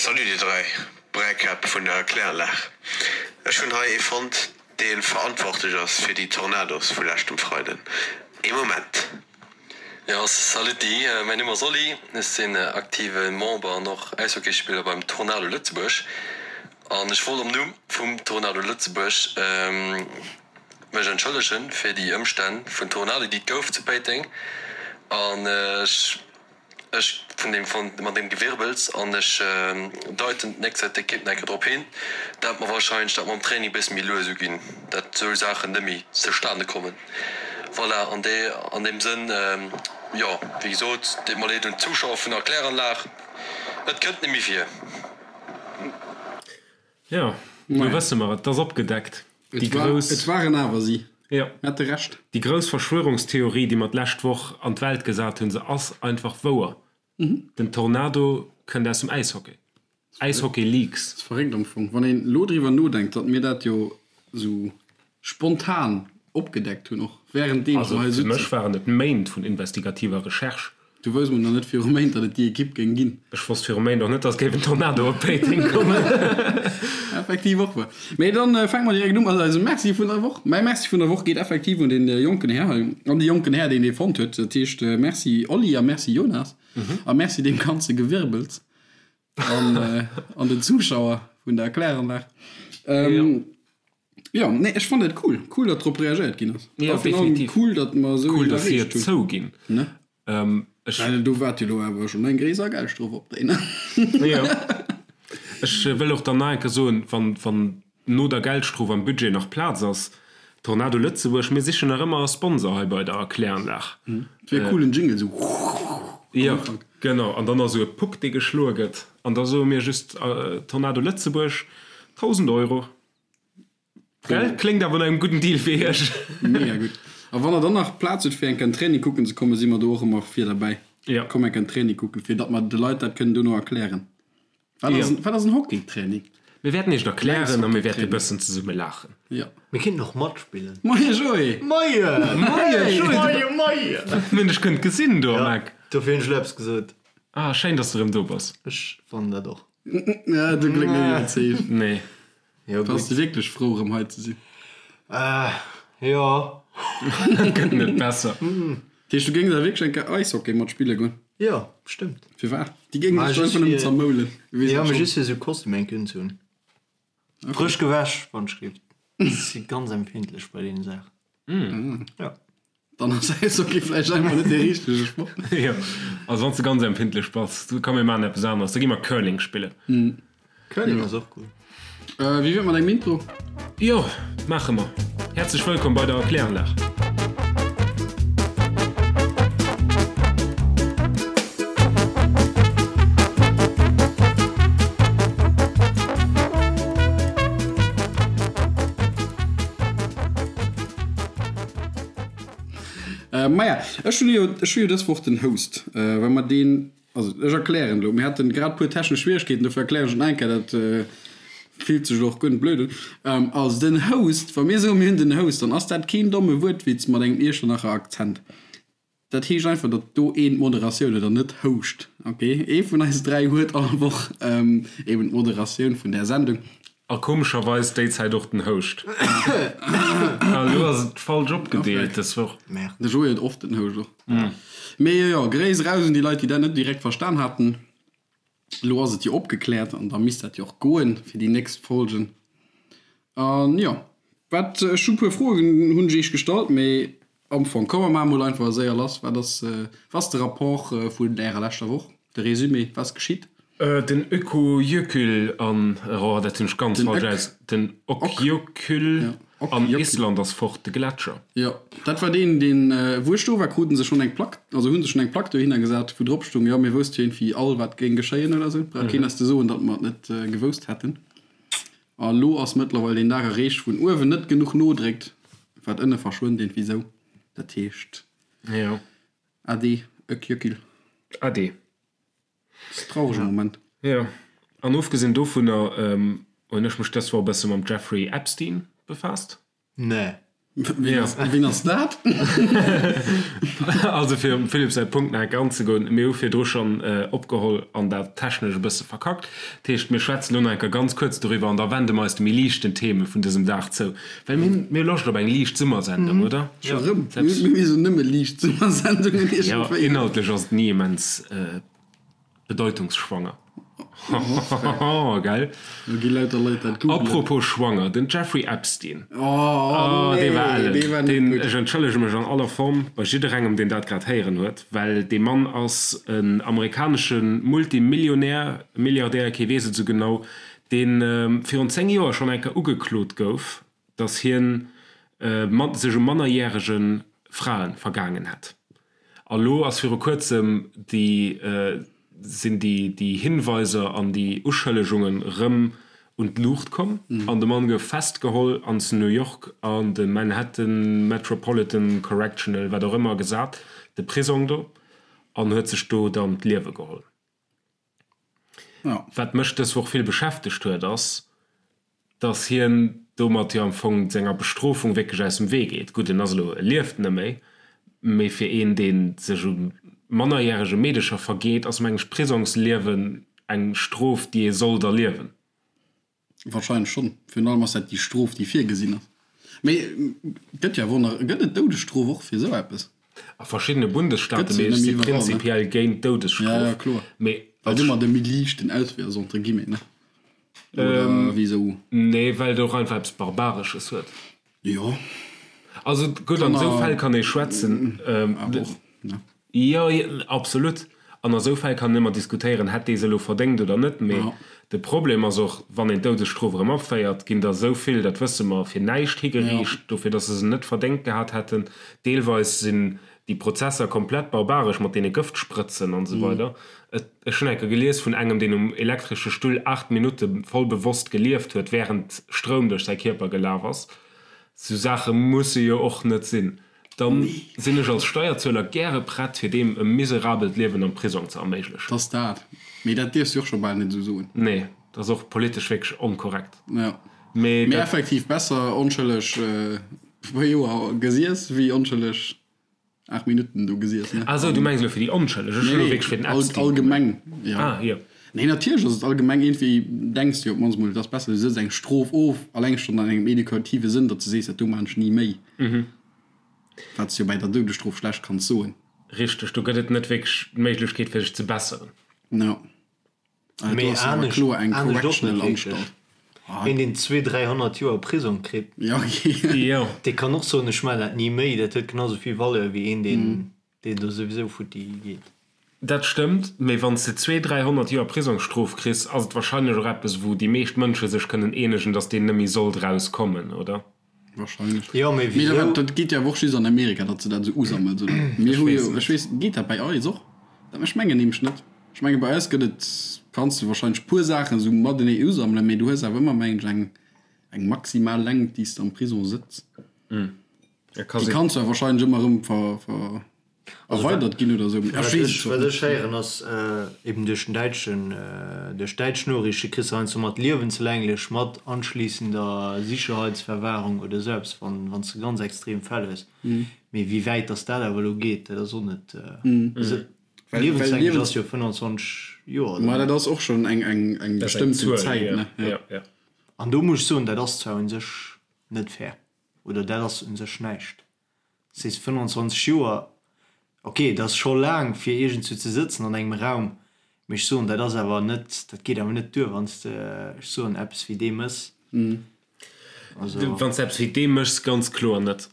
Salut dir 3 Bräikäpp vun der Kläranlag. Ech hunn hei ee fonnt dee verantwortlech ass fir déi Tornados vu leschtem Freiden. Ee Moment. Jo saluti, mäin Numm ass Oli, ech sinn aktive Member an och Äishockeyspiller beim Tornado Lëtzebuerg an ech wollt am Numm vum Tornado Lëtzebuerg mech entschëllegen fir déi Ëmstänn vun Tornado déi et gouf zu Péiteng an ech Ech vun deem von mat deem Gewirbels an ech deiten d'nächst d'Ekipp nach eng Kéier drop hin, dat mer wahrscheinlech dat mam Training bësse méi lues uginn, dat esou Saachen net méi zustane kommen. Voilà, an dee an deem Sënn, jo, wéi gesot, deet mer leed un d'Zuschauer vun der Kläranlag, et kënnt net méi vir. Jo, lo wësse mer et, 't ass opgedeckt. Déi grouss. Et waren awer si. Jo. Mir hate Recht. Déi grouss Verschwörungstheorie, déi mer d'lescht Woch an d'Welt gesat hunn, se ass einfach wouer. Den Tornado kënnt aus dem Äishockey. Äishockey Leaks. Ass verréckt am Fong, wann een elo driwwer nodenkt, datt mir dat jo esou spontan opgedeckt hunn, och währenddeems mer hei sitzen. Also fir mech waren et Méint vun investigativer Recherche. Du wousst mol nach net viru Méint, datt et déi Ekipp géing ginn. Ech wosst viru Méint och net, datt géif en Tornado op Péiteng kommen. Effektiv och wuer. Mee dann fänke mer direkt u mat eisem Merci vun der Woch. Mäi Merci vun der Woch geet effektiv un dee jonken Här hei, an dee jonken Här, deen dee fonnt huet. Dat heescht Merci Oli a Merci Jonas a Merci deem ganze Gewirbels an an den Zuschauer vun der Kläranlag. Jo, nee, ech fannen dat cool. Cool, datt drop reagéiert ginn ass. Jo, definitiv. Cool, datt mer esou Cool, datt si et zouginn. Ne? Ech. Well do waart jo lo awer schonn eng gréisser Geldstrof op déi, ne? Jo. Ech wëll och dann nach eng Kéier soen, wann, wann no der Geldstrof am Budget nach Plaz ass, Tornado Lëtzebuerg, mir sichen nach ëmmer e Sponsor hei bei der Kläranlag. Et wier cool, en Jingle esou am Ufank. Jo, genau. An dann ass esou e Puck, dee geschloe gëtt. An da soe mir just, Tornado Lëtzebuerg, 1.000 Euro. Gell? Kléngt awer no engem gudden Deal fir iech. Mega gutt. A wann der dann nach Plaz hutt fir eng Kéier en Training kucken ze kommen, si mer do och ëmmer vir derbäi. Ja. Komm eng Kéier en Training kucken, fir datt mer de Leit dat kënnen dono erklären. Wat ass en, wat ass en Hockeytraining? Mir wäerten iech et erklären a mir wäerte e bëssen zesumme laachen. Ja. Mir kéinten och matspillen. Moie Joé! Moie! Moie Joé! Moie, moie! Mir hunn dech kënnt gesinn do am Eck. Ja, dofir hunn ech elo eppes gesot. Ah, schéin, dass du erëm do bass. Ech fannen dat och. Ja, du kléngt net iwwerzeegt. Nee. Jo, gutt. Bass de wierklech frou erëm hei ze sinn? Äh, jo. Gëtt net besser. Dat heescht, du géings awer wierklech eng Kéier Eishockey mat spille goen? Jo, bestëmmt. Firwat? Déi géingen dech einfach nëmmen zermoulen. Du weess Jo, dat mee schonn. just fir esou Kostüm eng Kéier unzehunn. Frësch gewäsch, wann ech géif. Ech si ganz empfindlech bei deene Saachen. Jo. Dann ass Äishockey vläicht einfach net dee richtege Sport. Jo, also wann s de ganz empfindlech bass, komm mir maachen eppes aneres, da gi mer Curling spillen. Curling ass och cool. Wéi wier et mat engem Intro? Jo, maache mer. Häerzlech wëllkomm bei der Kläranlag. Maja, ech hunn jo, ech hu jo dës Woch den Host, well mer deen, also ech erklären elo, mir haten grad puer technesch Schwieregkeeten, dofir erklären ech et nach eng Kéier, dat fillt sech elo och guer net blöd un. Also den Host, wa mir soen, mir hunn den Host, dann ass dat keen domme Wuertwitz mat engem Iechternacher Akzent. Dat heescht einfach, datt do een d'Moderatioun huet an net houscht. Ok, ee vun eis 3 huet all Woch eben d'Moderatioun vun där Sendung. A komescherweis déi Zäit och den Houscht. A lo ass et falsch opgedeelt dës Woch. Merde. De Joé huet oft den Houscht och. Mee jo, Gréiss eraus un déi Leit, déi dat net direkt verstan haten. Elo ass et jo opgekläert an da misst dat jo och goen fir déi nächst Folgen. An jo, wat, ech hu puer Froen hunn ech iech gestallt, mee am Fong komm mer maache mol einfach séier lass. Wat ass, wat ass de Rapport vun ärer leschter Woch, de Résumé, wat ass geschitt? Den Ökojökull an, oh dat hunn ech ganz falsch aus, den Okjökull an Island ass fort, de Gletscher. Jo, dat war deen, deen, wou ech do war, kruten se schonn eng Plack, also hu se schonn eng Plack dohinner gesat, wou drop stoung, jo, mir wousste jo iergendwéi all, wat géing geschéien oder sou. Brauch keen eis ze soen, datt mer et net gewousst hätten. A lo ass mëttlerweil deen Dag erreecht, wou en uewen net genuch nodréckt, wat ënne verschwënnt, iergendwéi sou. Dat heescht, Jo. Ade, Ökjökil. Ade. Dat ass e traurege Moment. Jo, an ofgesinn dovunner hunn ech mech dës Woch e bësse mam Jeffrey Epstein befaasst. Nee. Wien ass dat? Also fir um Philippe säi Punkt nach eng Kéier anzegoen, mir hu virdru schonn opgeholl an dat technesch e bësse verkackt. Dat heescht, mir schwätzen elo nach eng Kéier ganz kuerz doriwwer an da wende mer eis de méi liichten Theme vun dësem Dag zou. Well mir hunn, mir hu Loscht op eng liicht Summersendung, oder? Scho rëm? Mir hu nëmme liicht Summersendungen iergendwéi. Jo, inhaltlech ass et ni immens. Bedeutungsschwanger. Hahaha, gell? Lo gi lauter Leit dat googlen. Apropos schwanger, den Jeffrey Epstein. Oh, dee war ellen. Dee war net gutt. Ech entschëllege mech an aller Form bei jidderengem, deen dat grad héieren huet, well dee Mann ass en amerikanesche Multimillionär, Milliardär, kee weess et esou genau, dee virun 10 Joer schonn eng Kéier ugeklot gouf, datt hien sech u mannerjärege Frae vergaangen hätt. A lo ass viru kuerzem déi, sinn déi, déi Hinweiser an déi Uschëllegungen erëm un d'Luucht komm an de Mann gouf festgeholl an zu New York an de Manhattan Metropolitan Correctional, wat och ëmmer gesat, de Prisong do, an huet sech do dann d'Liewe geholl. Wat mech dës Woch vill beschäftegt huet, ass, dass hien domat jo am Fong senger Bestrofung wierklech aus dem Wee geet. Gutt, en ass elo, e lieft net méi, mee fir een, dee sech u mannerjärege Meedecher vergeet, ass, meng ech, d'Prisongsliewen eng Strof, déi ee sollt erliewen. Wahrscheinlech schonn. Virun allem ass dat déi Strof, déi virgesinn ass. Mee gëtt jo awer och nach, gëtt et d'Doudesstrof och fir esou eppes? A verschiddene Bundesstaate, mee ech si prinzipiell géint d'Doudesstrof. Mee Well domat e méi liichten Auswee ass, entre guillemets, ne? Oder wisou? Nee, well et och einfach eppes Barbaresches huet. Jo. Also gutt, an esou Fäll kann ee schwätzen. Awer och, ne? Jo, absolut. An a sou Fäll kann een ëmmer diskutéieren, hätt dee se elo verdéngt oder net. Mee de Problem ass och, wann een d'Doudesstrof erëm aféiert, ginn der esou vill, dat wësse mer, fir näischt higeriicht, dofir datt se se net verdéngt gehat hätten. Deelweis sinn déi Prozesser komplett barbaresch mat deene Gëftsprëtzen an esou weider. Ech hunn eng Kéier gelies vun engem, deen um elektresche Stull 8 Minutte voll bewosst gelieft huet, wärend Stroum duerch säi Kierper gelaf ass. Sou Saache musse jo och net sinn. Dann sinn ech als Steierzueler gäre prett fir deem e miserabelt Liewen am Prisong ze erméiglechen. T'ass dat. Mee dat dierfs de och scho bal net esou soen. Nee, dat ass och politesch wierklech onkorrekt. Jo. Mee dat. Effektiv besser onschëlleg e puer Joer gesiess wéi onschëlleg 8 Minutten do gesiess, ne? Ah sou, du mengs elo fir déi Onschëlleg. Ech hunn elo wierklech fir den Epstein gemengt. Allgemeng, jo. Ah, jo. Nee, natierlech ass et allgemeng, iergendwéi denks de jo op d'mannst mol, et ass besser, du sëtz eng Strof of, alleng schonn an engem edukative Sënn, datt s de sees, dat do maachen ech ni méi. Wat s de jo bäi der Doudesstrof schlecht kanns soen. Richteg, do gëtt et net wierklech d'Méiglechkeet fir sech ze besseren. Jo. Ah, do ass awer kloer eng correctional Anstalt. Een deen zwee, 300 Joer Prisong kritt, dee kann och soen, ech maachen dat ni méi. Dat huet genau sou vill Valeur wéi een deen deen do souwisou futti geet. Dat stëmmt, mee wann s de zwee, 300 Joer Prisongsstrof kriss, ass et wahrscheinlech och eppes wou déi meescht Mënsche sech kënnen eenegen, datt deen net méi sollt erauskommen, oder? Wahrscheinlech. Jo, mee Mee wisou? dat geet jo awer och just an Amerika, datt se dat esou usammelt, oder? Mir hu jo, ech weess, geet dat bei eis och? Dat, ech mengen nämlech net. Ech menge bei eis gëtt et, kanns de wahrscheinlech puer Saachen esou matenee usammelen, mee du hues awer ëmmer, mengen ech, eng, eng maximal Längt, déi s de am Prison sëtz. Déi kanns du awer wahrscheinlech ëmmer erëm ver, ver, erweidert ginn oder esou. Ech weess et Wat ech héieren ass, eben duerch den däitschen, duerch däitsch Noriichte kriss de heiansdo mat liewenslänglech mat anschließender Sicherheitsverwahrung oder esou eppes, wann wann s de ganz extrem Fäll hues. Mee wéi wäit datt dat awer elo geet, dat ass och net, also liewenslänglech ass jo 25 Joer oder? Ma dat ass och schonn eng eng eng bestëmmten Zäit, ne? Jo. An do muss ech soen, dat ass zwar u sech net fair oder dat ass u sech näischt. Sees 25 Joer, ok, dat ass scho laang fir iergendswou ze sëtzen an engem Raum, mee ech soen, dat ass awer net, dat geet awer net duer, wann s de, ech soen, eppes wéi dee mëss. Also. Wann s de eppes wéi dee méchs, ganz kloer net.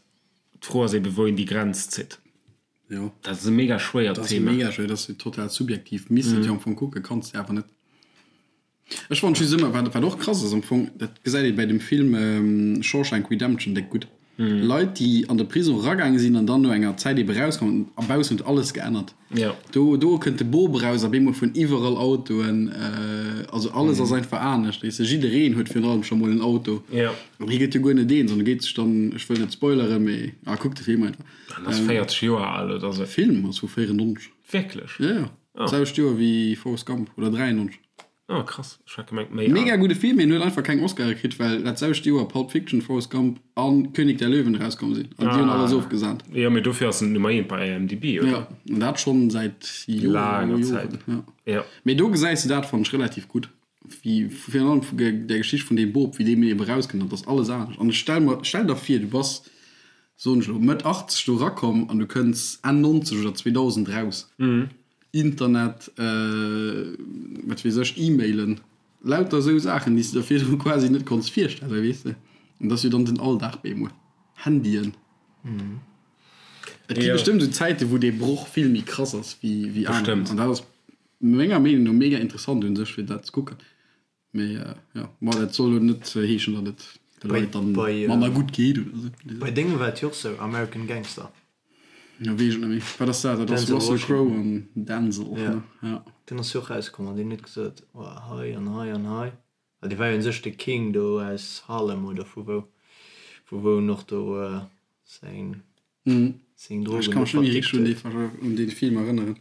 D'Fro ass ebe wou een déi Grenz zitt. Jo. Dat ass e mega schwéiert Thema. Dat ass mega schwéier, dat ass jo total subjektiv. Misst et jo am Fong kucken, kanns de awer net. Ech fannen just ëmmer, wat wat och krass ass am Fong, dat gesäit ee bäi dem Film Shawshank Redemption déck gutt, Leit déi an de Prison eragaange sinn an dann no enger Zäit ebe rauskommen a baussen huet alles geännert. Do do kënnt de Bop eraus a bemol fueren iwwerall Autoen, also alles ass einfach anescht, weess de, jiddereen huet virun allem scho mol en Auto an hie gëtt jo guer net eens an e geet sech dann, ech wëll net spoileren, mee ah kuck de Film einfach. En ass 40 Joer al oder sou. Film ass vu 94. Wierklech? Jo jo, d'selwecht Joer wéi Forrest Gump oder 93. Oh krass, ech hat gemengt méi al. Mega gudde Film, mee en huet einfach keng Oscare kritt, well dat selwecht Joer Pulp Fiction, Forrest Gump an König der Löwen erauskomm sinn an déi hunn alles ofgesahnt. Jo, mee dofir ass en Nummer eent bei IMDb, oder? Jo, an dat schonn säit Joren a Laanger Zäit, Joren. Jo. Mee do gesäis de dat, fannen ech, relativ gutt, wéi virun allem vu der Geschicht vun deem Bop, wéi deem eben erauskënnt an et ass alles anescht. An ech stell mer, stell der vir, du bass, soen ech elo, Mëtt 80 do erakomm an du kënns Enn 90 oder 2000 eraus. Internet, wat weess ech, E-Mailen, lauter esou Saachen, déi s de der virdru quasi net konns virstellen, weess de. An dat ass jo dann den Alldag bemol. Handyen. Et gi bestëmmt esou Zäiten, wou dee Broch vill méi krass ass wéi wéi aner. An dat ass menger Meenung no mega interessant un sech, fir dat ze kucken. Mee jo, ma dat soll elo net heeschen, datt et de Leit dann manner gutt geet oder esou. Bei dengem war et jo och sou, American Gangster. Jo, weess ech net méi. Wat ass dat? Dat ass Russell Crowe an Denzel, ne? Ja. Deen ass jo och rauskomm an deen huet gesot, oh hei an hei an hei. Well dee war jo un sech de King do aus Harlem oder vu wou, vu wou en och do seng Seng Drogen Ech kann mech net méi richteg un dee un dee Film erënneren.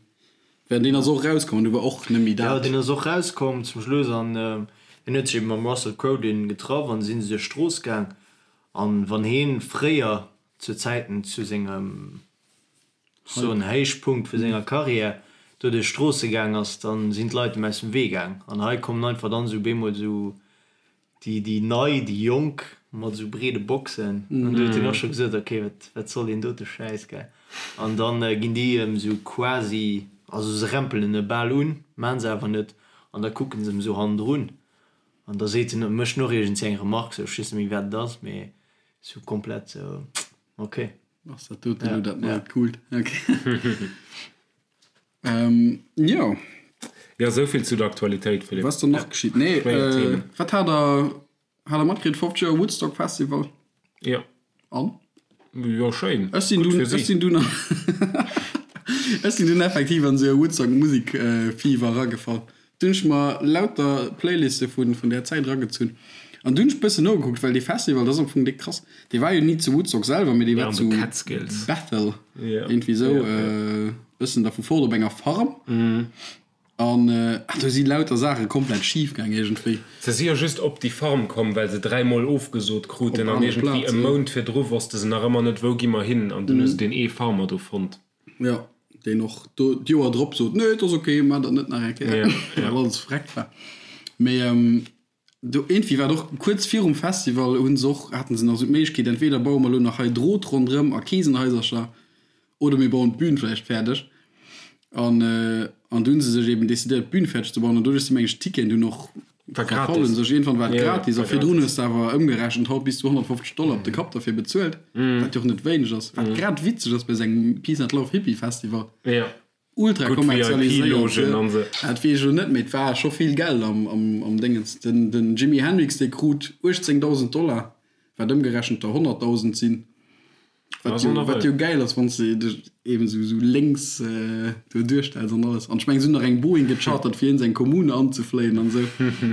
Well deen ass och rauskomm an du war och net méi dat. Jo, deen ass och rauskomm zum Schluss an hien huet sech eben mam Russell Crowe dunn getraff an si se duerch d'Strooss gaang. An wann hien fréier zu Zäiten zu sengem soen Héichpunkt vu senger Karriär do duerch d'Stroosse gaang ass, dann sinn d'Leit em aus dem Wee gaang. An hei kommen einfach dann esou bemol esou Déi, déi nei, déi jonk mat esou breede Boxen. An du huet hien och scho gesot, ok, wat, wat soll deen dote Schäiss, gell. An dann ginn déi em esou quasi, also se rempelen e bal un, maan se awer net, an da kucken se em esou hannendrun. An da seet en, mécht en och iergendswéi eng Remarque, sou, ech weess net méi wat et ass, mee sou komplett sou, ok. Ass dat doten elo dat neit Coolt? Ok. Jo. Jo, esou vill zu der Aktualitéit, Philippe. Wat ass dann nach geschitt? Nee, wat hat der, hat der matkritt? 50 Joer Woodstock Festival? Jo. An? Jo, schéin. Ech sinn dunn, ech sinn dunn, ech sinn dunn effektiv an esou e Woodstock Musik Fever eragefall. Dunn hunn ech mer lauter Playliste vun, vun där Zäit eragezunn. An dunn hunn ech bëssen nogekuckt, well dee Festival, dat ass am Fong déck krass. Dee war jo ni zu Woodstock selwer, mee dee war zu Bethel, iergendwéi esou, bëssen dervu fort op enger Farm. An do si lauter Saache komplett schif gaang iergendwéi. Se si jo just op déi Farm komm, well se dräimol ofgesot kruten an iergendwéi e Mount virdru wosste se nach ëmmer net, wou gi mer hin. An dunn hu se deen ee Farmer do fonnt. Jo, deen och do d'Joer drop sot, nee, et ass ok, maacht dat net nach eng Kéier, well alles vreckt war. Mee do iergendwéi war et och kuerz virum Festival, hu se och, haten se nach esou d'Méiglechkeet, entweder baue mer elo nach hei Drot ronderëm a Kesenhaisercher, Oder mir bauen d'Bün vläicht fäerdeg. An, an du hunn se sech eben decidéiert, d'Bün fäerdeg ze bauen. An doduerch si meng ech d'Ticketen dunn och verfallen. Sech iergendwann war et gratis. A virdrun hues de awer ëmgerechent haut bis zu 150 Dollar op de Kapp derfir bezuelt, wat jo och net wéineg ass. Wat grad witzeg ass bei esou engem Peace and Love Hippie Festival. Ultra kommerzialiséiert. Dat weess ech elo net, mee et war scho vill Geld am, am, am Déngens. Den, den Jimi Hendrix, dee krut 18.000 Dollar, wat ëmgerechent der 100.000 sinn. Wat jo, wat jo gäil ass, wann s de dech eben esou, esou lénks do duerstells an alles. An ech mengen, se hunn nach eng Boeing gechartert, fir hien seng Kommune anzefléien an esou.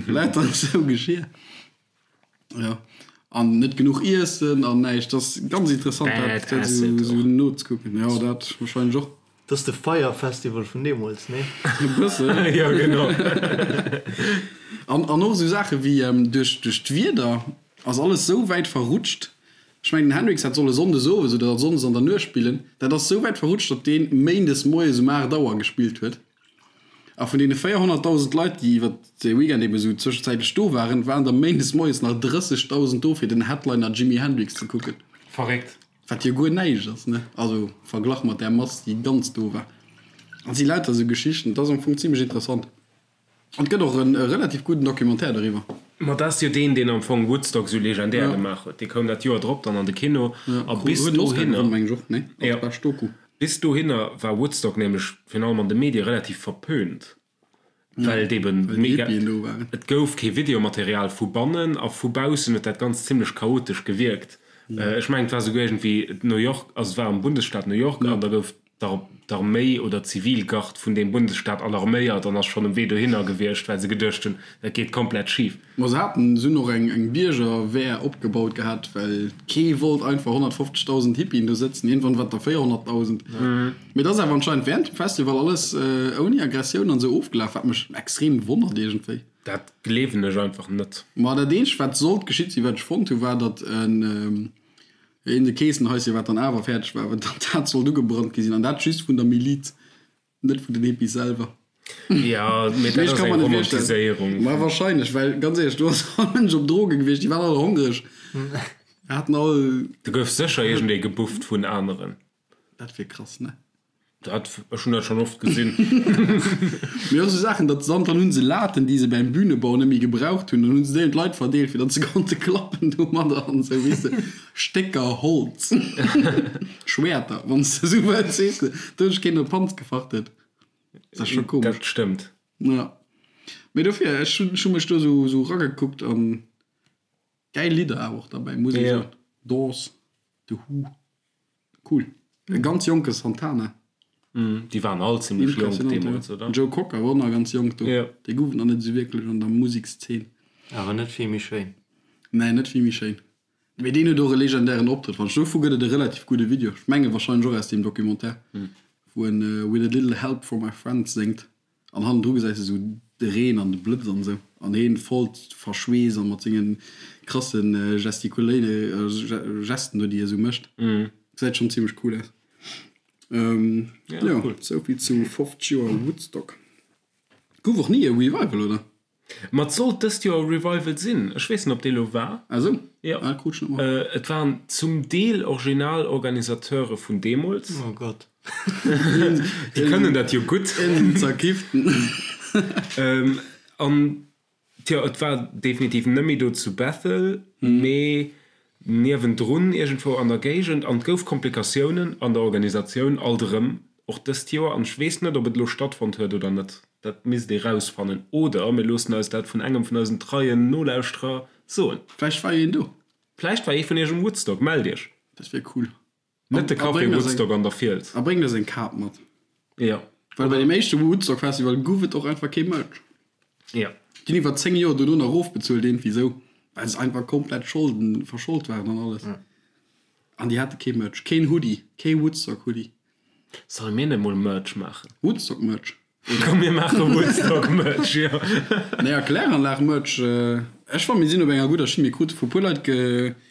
Lauter esou Geschir. Jo. An net genuch Iessen an näischt. Dat ass ganz interessant, dat, dat esou, esou nozekucken. Jo, dat wahrscheinlech och. Dat ass de Fyre Festival vun deemools, nee? E bëssen. Jo, genau. An, an och esou Saache wéi duerch, duerch d'Wieder ass alles esou wäit verrutscht, Ech mengen den Hendrix hätt solle Sonndes owes oder Sonndes an der Nuecht spillen. Dat ass sou wäit verrutscht, datt deen Méindes moies um 8 Auer gespillt huet. A vun deene 400.000 Leit, déi iwwer de Weekend eben esou zwëschenzäitlech do waren, waren der Méindes moies nach 30.000 do fir den Headliner Jimi Hendrix ze kucken. Verréckt. Wat jo guer näischt ass, ne? Also verglach mat där Mass, déi ganz do war. An et si lauter esou Geschichten. Et ass am Fong zimlech interessant. An et gëtt och e relativ gudden Documentaire doriwwer. Ma dat ass jo deen, deen am Fong Woodstock esou legendär gemaach huet. Dee koum dat Joer drop dann an de Kino. A bis dohinner, jo, bis dohinner war Woodstock nämlech virun allem an de Medie relativ verpönt, well et eben mega, et gouf kee Videomaterial vu bannen a vu baussen huet dat Ganzt zimlech chaotesch gewierkt. Ech mengen, et war souguer iergendwéi New York, also et war am Bundesstaat New York an da gouf d'Arméi oder d'Zivilgard vun deem Bundesstaat alarméiert an ass schonn um Wee dohinner gewiescht, well se geduecht hunn, dat geet komplett schif. Ma se haten, se hunn och eng Biergerwehr opgebaut gehat, well kee wollt einfach 150.000 Hippien do sëtzen. Iergendwann waren et der 400.000. Mee et ass awer anscheinend während dem Festival alles ouni Aggressioun an esou ofgelaf, wat mech extrem wonnert iergendwéi. Dat gleewen ech einfach net. Ma dat eenzegt wat sollt geschitt sinn, wat ech fonnt hunn, war datt en een de Keessenhaisschen, wat dann awer fäerdeg war, datt dat sollt ugebrannt gi sinn an dat just vun der Miliz, net vun den Hippies selwer. Jo, mee dat ass eng Romantiséierung. Ma wahrscheinlech, well ganz éierlech, do ass all Mënsch op Droge gewiescht, déi waren all hongreg, haten all. Do gouf sécher iergendee gebufft vun aneren. Dat wier krass, ne? Dat, ech hunn dat schonn oft gesinn. Mee och sou Saachen, datt se dann hunn se Laten, déi se beim Bühnebau net méi gebraucht hunn, dann hunn se déi un d'Leit verdeelt, fir datt se konnte klappen domadder an esou, weess de. Stécker Holz, Schwäerter, wann s de esou wëlls, weess de. Do huet sech keen op d'Panz gefacht huet. Dat ass scho komesch. Dat stëmmt. Ja. Mee dofir, ech hunn, ech hu mech do esou, esou ragekuckt an gäil Lidder awer och derbäi, muss ee soen. Doors, The Who. Cool. E ganz jonke Santana. Déi waren all zimlech jonk deemools, oder? Joe Cocker war och nach ganz jonk do. Dee gouf et nach net esou wierklech an der Musekszeen. Awer net vill méi schéin. Nee, net vill méi schéin. Mee deen huet och e legendären Optrëtt, fannen ech. Dovu gëtt et e relativ gudde Video, ech menge warscheinlech och aus deem Documentaire, wou en With a little help from my friends séngt. An hannendru gesäis de sou de Reen an de Blëtz an esou. An heen voll verschweesst an mat sengen krassen Gestikuléine Gesten do déi e sou mécht. Gesäit schon zimmlech cool aus. Jo, souvill zu 50 Joer Woodstock. Gouf och ni e Revival, oder? Ma et sollt dëst Joer e Revival sinn. Ech weess net, ob dee lo war. Ah sou? Jo. Ah, krut ech net mat. Et waren zum Deel original Organisateure vun deemools. Oh Gott. Déi kënnen dat jo gutt. En zerkifften. An tjo, et war definitiv net méi do zu Bethel, mee niewendrun iergendwou an der Géigend. An et gouf Komplikatiounen an der Organisatioun alt erëm, och dëst Joer. An ech weess net, ob et elo stattfonnt huet oder net. Dat misst ee rausfannen. Oder mir loossen eis dat vun engem vun eisen treien Nolauschterer soen. Vläicht war een do. Vläicht war ee vun iech um Woodstock. Mellt iech. Dat wier cool. Net de Café Woodstock an der Fiels. A bréngt eis eng Kap mat. Jo. Well bei deem éischte Woodstock Festival guff et och einfach kee Merch. Jo. Déi hunn iwwer 10 Joer dono nach erofbezuelt iergendwéi sou, well se einfach komplett Scholden, verschold waren an alles. An déi hate kee Merch. Keen Hoodie. Kee Woodstock Hoodie. Solle mir net mol Merch maachen? Woodstock Merch. Komm mir maache Woodstock Merch, jo. Nee, a Kläranlag Merch. Ech fannen mir sinn op enger gudder Schinn. Mir krute vu puer Leit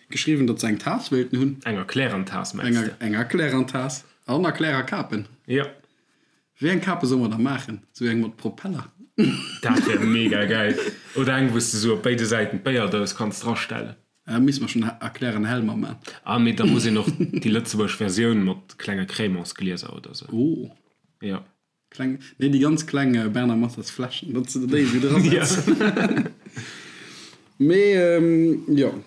geschriwwen, datt se eng Taass wéilten hunn. Eng Erklären-Taass mengs de? Eng Erklären-Taass an Erklärer-Kapen. Jo. Wéi eng Kape solle mer da maachen? Sou eng mat Propeller? Dat wär mega gäil. Oder eng wou s de sou op béide Säiten d'Béierdous kanns drastellen. Da misste mer schonn Erklären Helmer man. Ah, mee da muss een och déi lëtzebuergesch Versioun mat klenge Crémantsglieser oder sou. Oh. Jo. Kleng, nee déi ganz kleng Bernard Massas Fläschen, datt se déi esou dra setzen. Mee jo,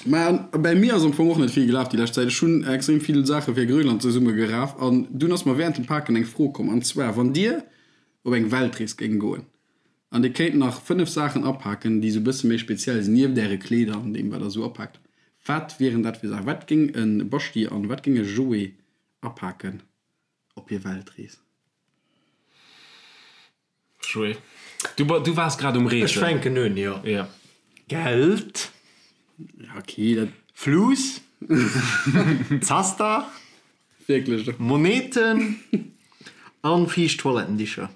mä bäi mir ass am Fong och net vill gelaf déi lescht Zäit. Ech hunn extrem vill Saache fir Grönland zesumme geraf an dunn ass mer während dem Paken eng Fro komm an zwar, wann Dir op eng Weltrees géing goen an Dir kéint nach 5 Saachen apaken, déi esou e bësse méi speziell sinn, nieft Äre Kleeder an deem wat Der esou apaakt, wat wieren dat fir Saachen? Wat géing e Baschi an wat géing e Joé apaken? Op hir Weltrees. Joé, du, du waars grad um Reesen. Ech fänken un, jo. Ja. Geld. Ja, okay, dat. Fluss. Zaster. Wierklech. Moneten. An fiicht Toilettendicher.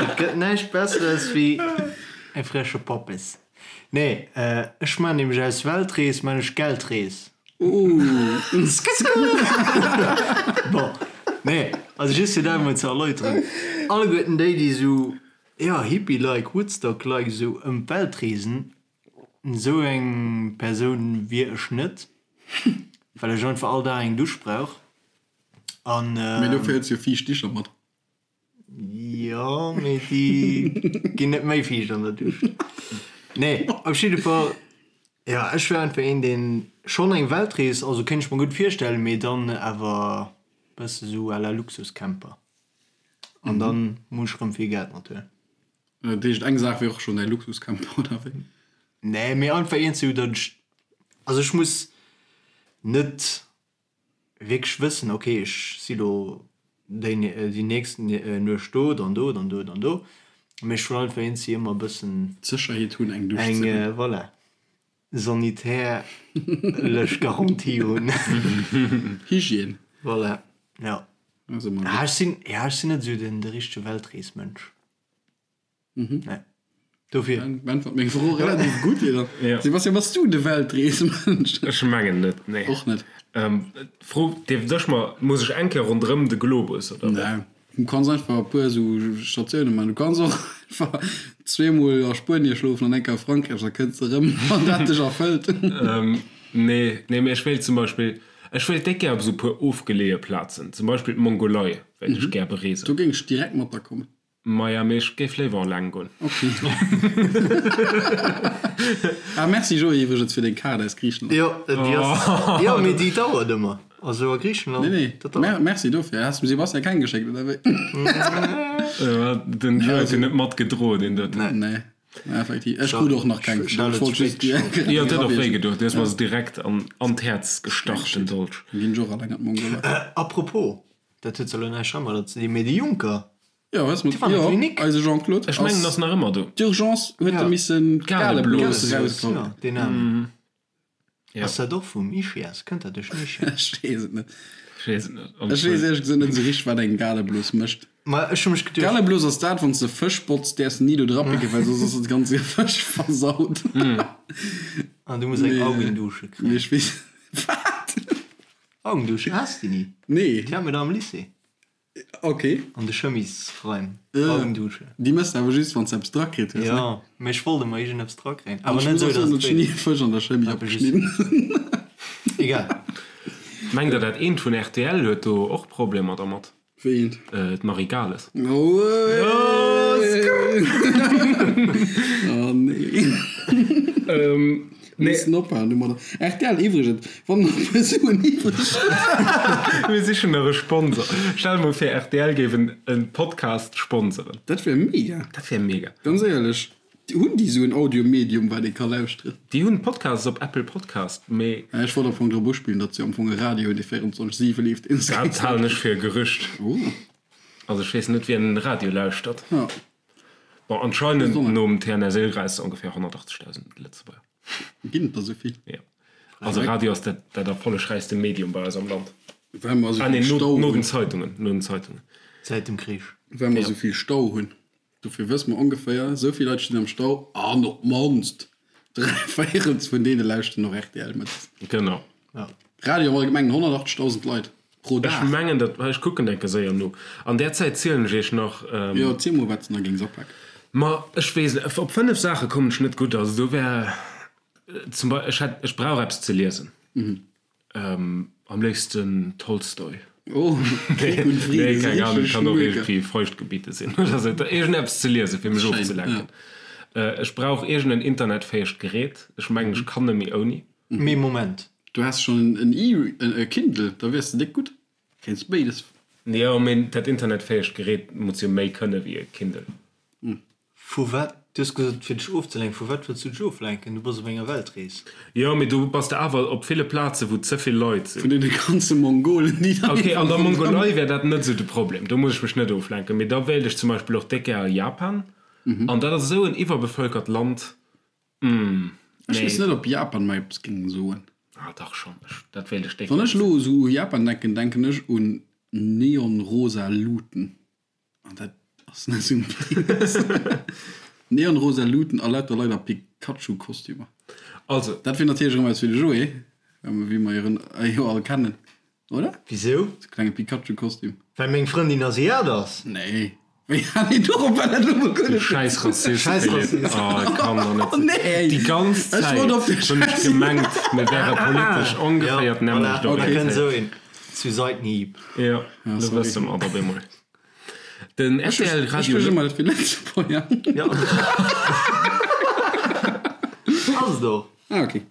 Et gëtt näischt Besseres wéi e fresche Poppes. Nee, ech man nämlech aus Weltrees man ech Geldrees. Bon, nee, also just fir dat emol ze erläuteren, alleguerten déi, déi esou, jo, Hippie-like, Woodstock-like esou ëm d'Welt reesen, esou eng Persoun wier ech net, well ech einfach all Dag eng Dusch brauch an. Mee dofir hues du jo fiicht Dicher mat. Jo, mee déi ginn net méi fiicht an der Dusch. Nee, op jidde Fall, jo, ech wär einfach een, deen schonn eng Weltrees, also kéint ech mer gutt virstellen, mee dann awer bësse sou à la Luxuscamper. An dann muss ech rëm vill Geld mathuelen. Dat heescht, eng Saach wier och schonn däi Luxuscamper, oder wéi? Nee, mee einfach eent sou, datt ech, also ech muss net wierklech wëssen, ok ech si lo déi déi nächst Nuecht do, dann do, dann do, dann do, mee ech wëll einfach eenzi ëmmer e bëssen D'Sécherheet hunn eng Dusch ze hunn. Eng, voilà, sanitärlech Garantie hunn. Hygiène. Voilà, jo. Ah, ech sinn, ja ech sinn net esou den de richtege Weltreesmënsch. Nee. Dofir. Beäntwert meng Fro relativ gutt, Peter. Ja. Sebastian, bass du de Weltreesmënsch? Ech mengen net, nee. Och net. D'Fro dierft ech mer, muss ech eng Kéier ronderëm de Globus, oder wéi? Nee, du kanns einfach e puer esou Statioune maachen. Du kanns och einfach zweemol a Spuenie schlofen an eng Kéier a Frankräich, da kënns de erëm, wann dat dech erfëllt. Nee, nee, mee ech wéilt zum Beispill, ech wéilt déck gär op esou e puer ofgeleeë Plazen, zum Beispill d'Mongolei wéilt ech gär bereesen. Do géing ech direkt mat der kommen. Maja, mee ech géif léiwer eleng goen. Ok. Ah, merci Joé iwwregens fir deng Kaart aus Griichenland. Jo, déi ass, jo, mee déi dauert ëmmer. Also a Griichenland, Nee, nee, dat dauert. Merci dofir. Has dem Sebastian keng geschéckt, oder wéi? Den Joé huet jo net matgedroen, deen doten. Nee, effektiv. Ech krut och nach keng. Ech hat et spéit geschéckt. Jo, et huet och wéi gedoen. Du hues mer se direkt an d'Häerz gestach, den Dolch. Dann ginn ech och eleng an d'Mongolei. A propos, dat huet zwar elo näischt heimadder ze dinn, mee de Juncker, Jo, hues mat, Déi war an der jo, Klinik. eise Jean-Claude Ech mengen, ass nach ëmmer do. D'Urgence huet e missen d'Galeblos d'Galeblos erausgeholl. Jo, deen Aarmen. Ja. Ass dat och vum Ischias? Kënnt dat duerch den Ischias? Ech weess et net. Ech weess et net. Ech weess éierlech gesot net esou richteg, wat eng Galeblos mécht. Ma ech hu mech geduecht. Galeblos ass dat, wann s de Fësch botz, däerfs de ni do dra picken, well soss ass de ganze Fësch versaut. An du muss eng Augendusche Mee kréien. ech weess, wat? Augendusche, has de déi ni? Nee. Déi hate mir da am Lycée. Ok. An de Chemisraim, Augendusche. Déi mëss de awer just, wann s de eppes drakritt hues, ne? Jo, mee ech wollt ëmmer iergendeppes drakréien. An Awer ech net muss esou, och soen, datt datt et ech ni wéi e Fësch an der Chemie Awer just. opgeschnidden. Egal. Mengt der dat eent vun rtl huet do och Problemer dermat? Wéi eent? D'Marie Gales. Oh nee. Nee. Missen ophalen domadder. Rtl iwwregens, wann nach e puer Suen iwwreg sinn. Mir sichen nach e Sponsor. Stell der mol vir rtl géif en Podcast sponseren. Dat wär mega. Dat wär mega. Ganz éierlech, hunn déi esou en Audio-Medium wat ee ka lauschteren? Déi hunn Podcasts op Apple Podcast, mee. Ech wollt am Fong drop uspillen, datt se am Fong e Radio hunn dee 24, 7 leeft. Dat halen ech fir e Gerücht. Oh. Also ech weess net wien Radio lauschtert. Ja. Bon, anscheinend nom TNS-Ilres ongeféier 180.000 Lëtzebuerger. Ginn et der esou vill? Jo. Also Radio ass dat, dat erfollegräichste Medium bei eis am Land. Well mer esou Ah nee, vill no, Stau no den hunn. Zeitungen, no den Zeitungen. Säit dem Krich. Well mer esou vill Stau hunn. Dofir wësse mer ongeféier, esou vill Leit stinn am Stau an op d'mannst 3 Véierels vun deene lauschteren och rtl mëttes. Genau. Ja. Radio am Allgemengen 180.000 Leit pro Ech Dag. mengen dat, ech kucken enke séier no. An där Zäit zielen ech iech nach. Jo, ziel mol wat s de nach géings apaken. Ma ech weess net, op 5 Saache kommen ech net gutt. Also do wär zum Beispill, ech hätt, ech brauch eppes ze liesen. Am léifsten Tolstoi. Oh, Krieg und Frieden, Nee, keng Ahnung, richteg kann och Schmöker. iergendwéi Feuchtgebiete sinn oder sou. Iergendeppes ze liesen, fir mech Schéin, ofzelenken. Ech brauch iergendeen internetfäegt Gerät. Ech mengen, ech kann net méi ouni. Mee Moment. Du häss schon en e e Kindle, da wiers de déck gutt. Kéints béides. Jo, mee dat internetfäegt Gerät muss jo méi kënne wéi e Kindle. Vu wat? Du hues gesot fir dech ofzelenken. Vu wat wëlls du dech oflenken? Du bass op enger Weltrees. Jo, mee du bass de awer op ville Plaze wou ze vill Leit sinn. Vun deene ganze Mongolen, déi dann Ok, an der Mongolei wär dat net esou de Problem, do muss ech mech net oflenken. Mee da wéilt ech zum Beispill och déck gär a Japan. An dat ass esou en iwwerbevölkert Land. Ech weess net op Japan mer eppes géing soen. Ah dach schon, ech, dat wéilt ech déck Wann ech elo esou u Japan denken, denken ech un neonrosa Luuten. An dat ass net esou menges. Neonrosa Luuten a lauter Leit a Pikachu-Kostümer. Also. Dat wier natierlech erëm eppes fir de Joé, wéi mer jo all kennen. Oder? Wisou? Sou klenge Pikachu-Kostüm. Well meng Frëndin Asiat ass? Nee. Wéi hat een dorop well dat elo mol guer Du net. schäiss Rassist, Schäiss Philippe. Rassist. Oh, et kann doch net Oh sinn. nee! Déi ganz Ech Zäit wollt op de hunn ech Schäiss. gemengt, mir wäre politesch ongeféier Ja, d'nämmlecht voilà, da kënnt orientéiert. esou een zu Seitenhieb. Jo, Ja, lo sorry. wësse mer et op eemol. Den Ech rtl ech Radio wësch ëmmer dat fir Lëtzebuerger. Ja. Ass et och. Ah, okay.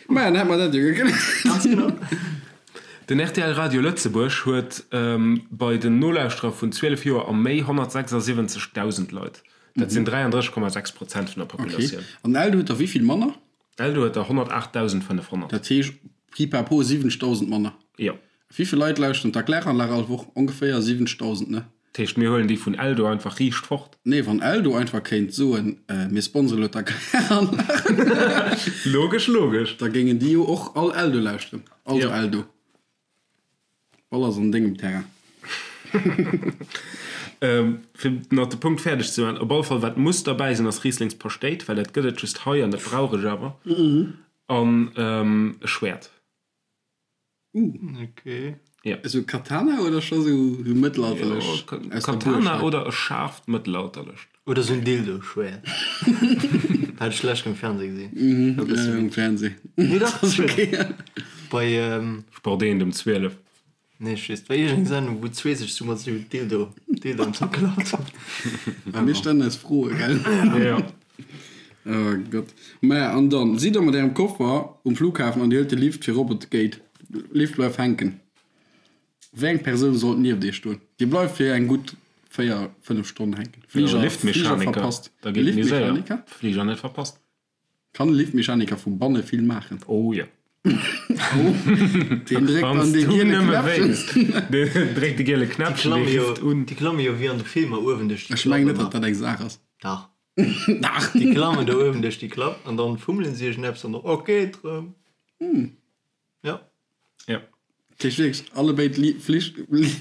Maja, dann hätt mer dat jo gekläert. Ganz genau. Den rtl Radio Lëtzebuerg huet bei den Nolauschterer vun 12 Joer a méi 176.000 Leit. Dat sinn 33,6 Prozent vun der Populatioun. Okay. An Eldo huet der wéi vill manner? Eldo huet der 108.500. Dat heescht pipapo 70.000 manner. Jo. Wéi vill Leit lauschteren d'Erkläranlag all Woch? Ongeféier 70.000, ne? Dat heescht, mir huelen déi vun Eldo einfach riicht fort? Nee, wann Eldo einfach kéint soen, mir sponsere lo d'Erkläranlag. Logesch, logesch. Da géingen déi jo och all Eldo lauschteren. Also Jo. Eldo, Ball ass an dengem Terrain. Fir nach de Punkt fäerdeg ze maachen, op alle Fall wat muss derbäi sinn ass Rieslingspaschtéit, well dat gëtt et just hei an dat brauch ech awer, an e Schwäert. Okay. Ja. Esou Katana oder scho sou mëttelalterlech? Ja, Katana oder e schaarft mëttelalterlecht. Oder sou en Dildo-Schwäert. Hat ech d'lescht um Fernseh gesinn. Mhm, um Fernseh. Nee, dach, das ist okay. Bei, ähm. Sport 1 um 12. Nee, ech weess, et war iergend eng Sendung, wou zwee sech sou mat sou Dildo, Dildoen zerklappt hunn. A mir stellen eis Froe, gell? Ja. Oh Gott. Maja, an dann sidd der mat ärem Koffer um Flughafen an dir huelt de Lift fir rop et geet. Lift bleift hänken. Wéi eng Persoun sollt nieft iech stoen? Dir bleift fir eng gutt 4, 5 Stonnen hänken. Fliger, Flieger verpasst. Da geet méi séier. Liftmechaniker? Fliger net verpasst. Kann e Liftmechaniker vu banne vill maachen? Oh jo. Deen dréckt dann dee giele Knäppchen. Deen dréckt de giele Knäppchen, dee rifft un. Déi klamme jo wéi an de Filmer uewen duerch déi Ech mengen net, datt dat eng Saach ass. Dach. Dach. Déi klammen do uewen duerch déi Klapp an dann fummelen si iergendeppes an da ok, et rëm. Jo. Jo. Dat heescht wierklech allebéid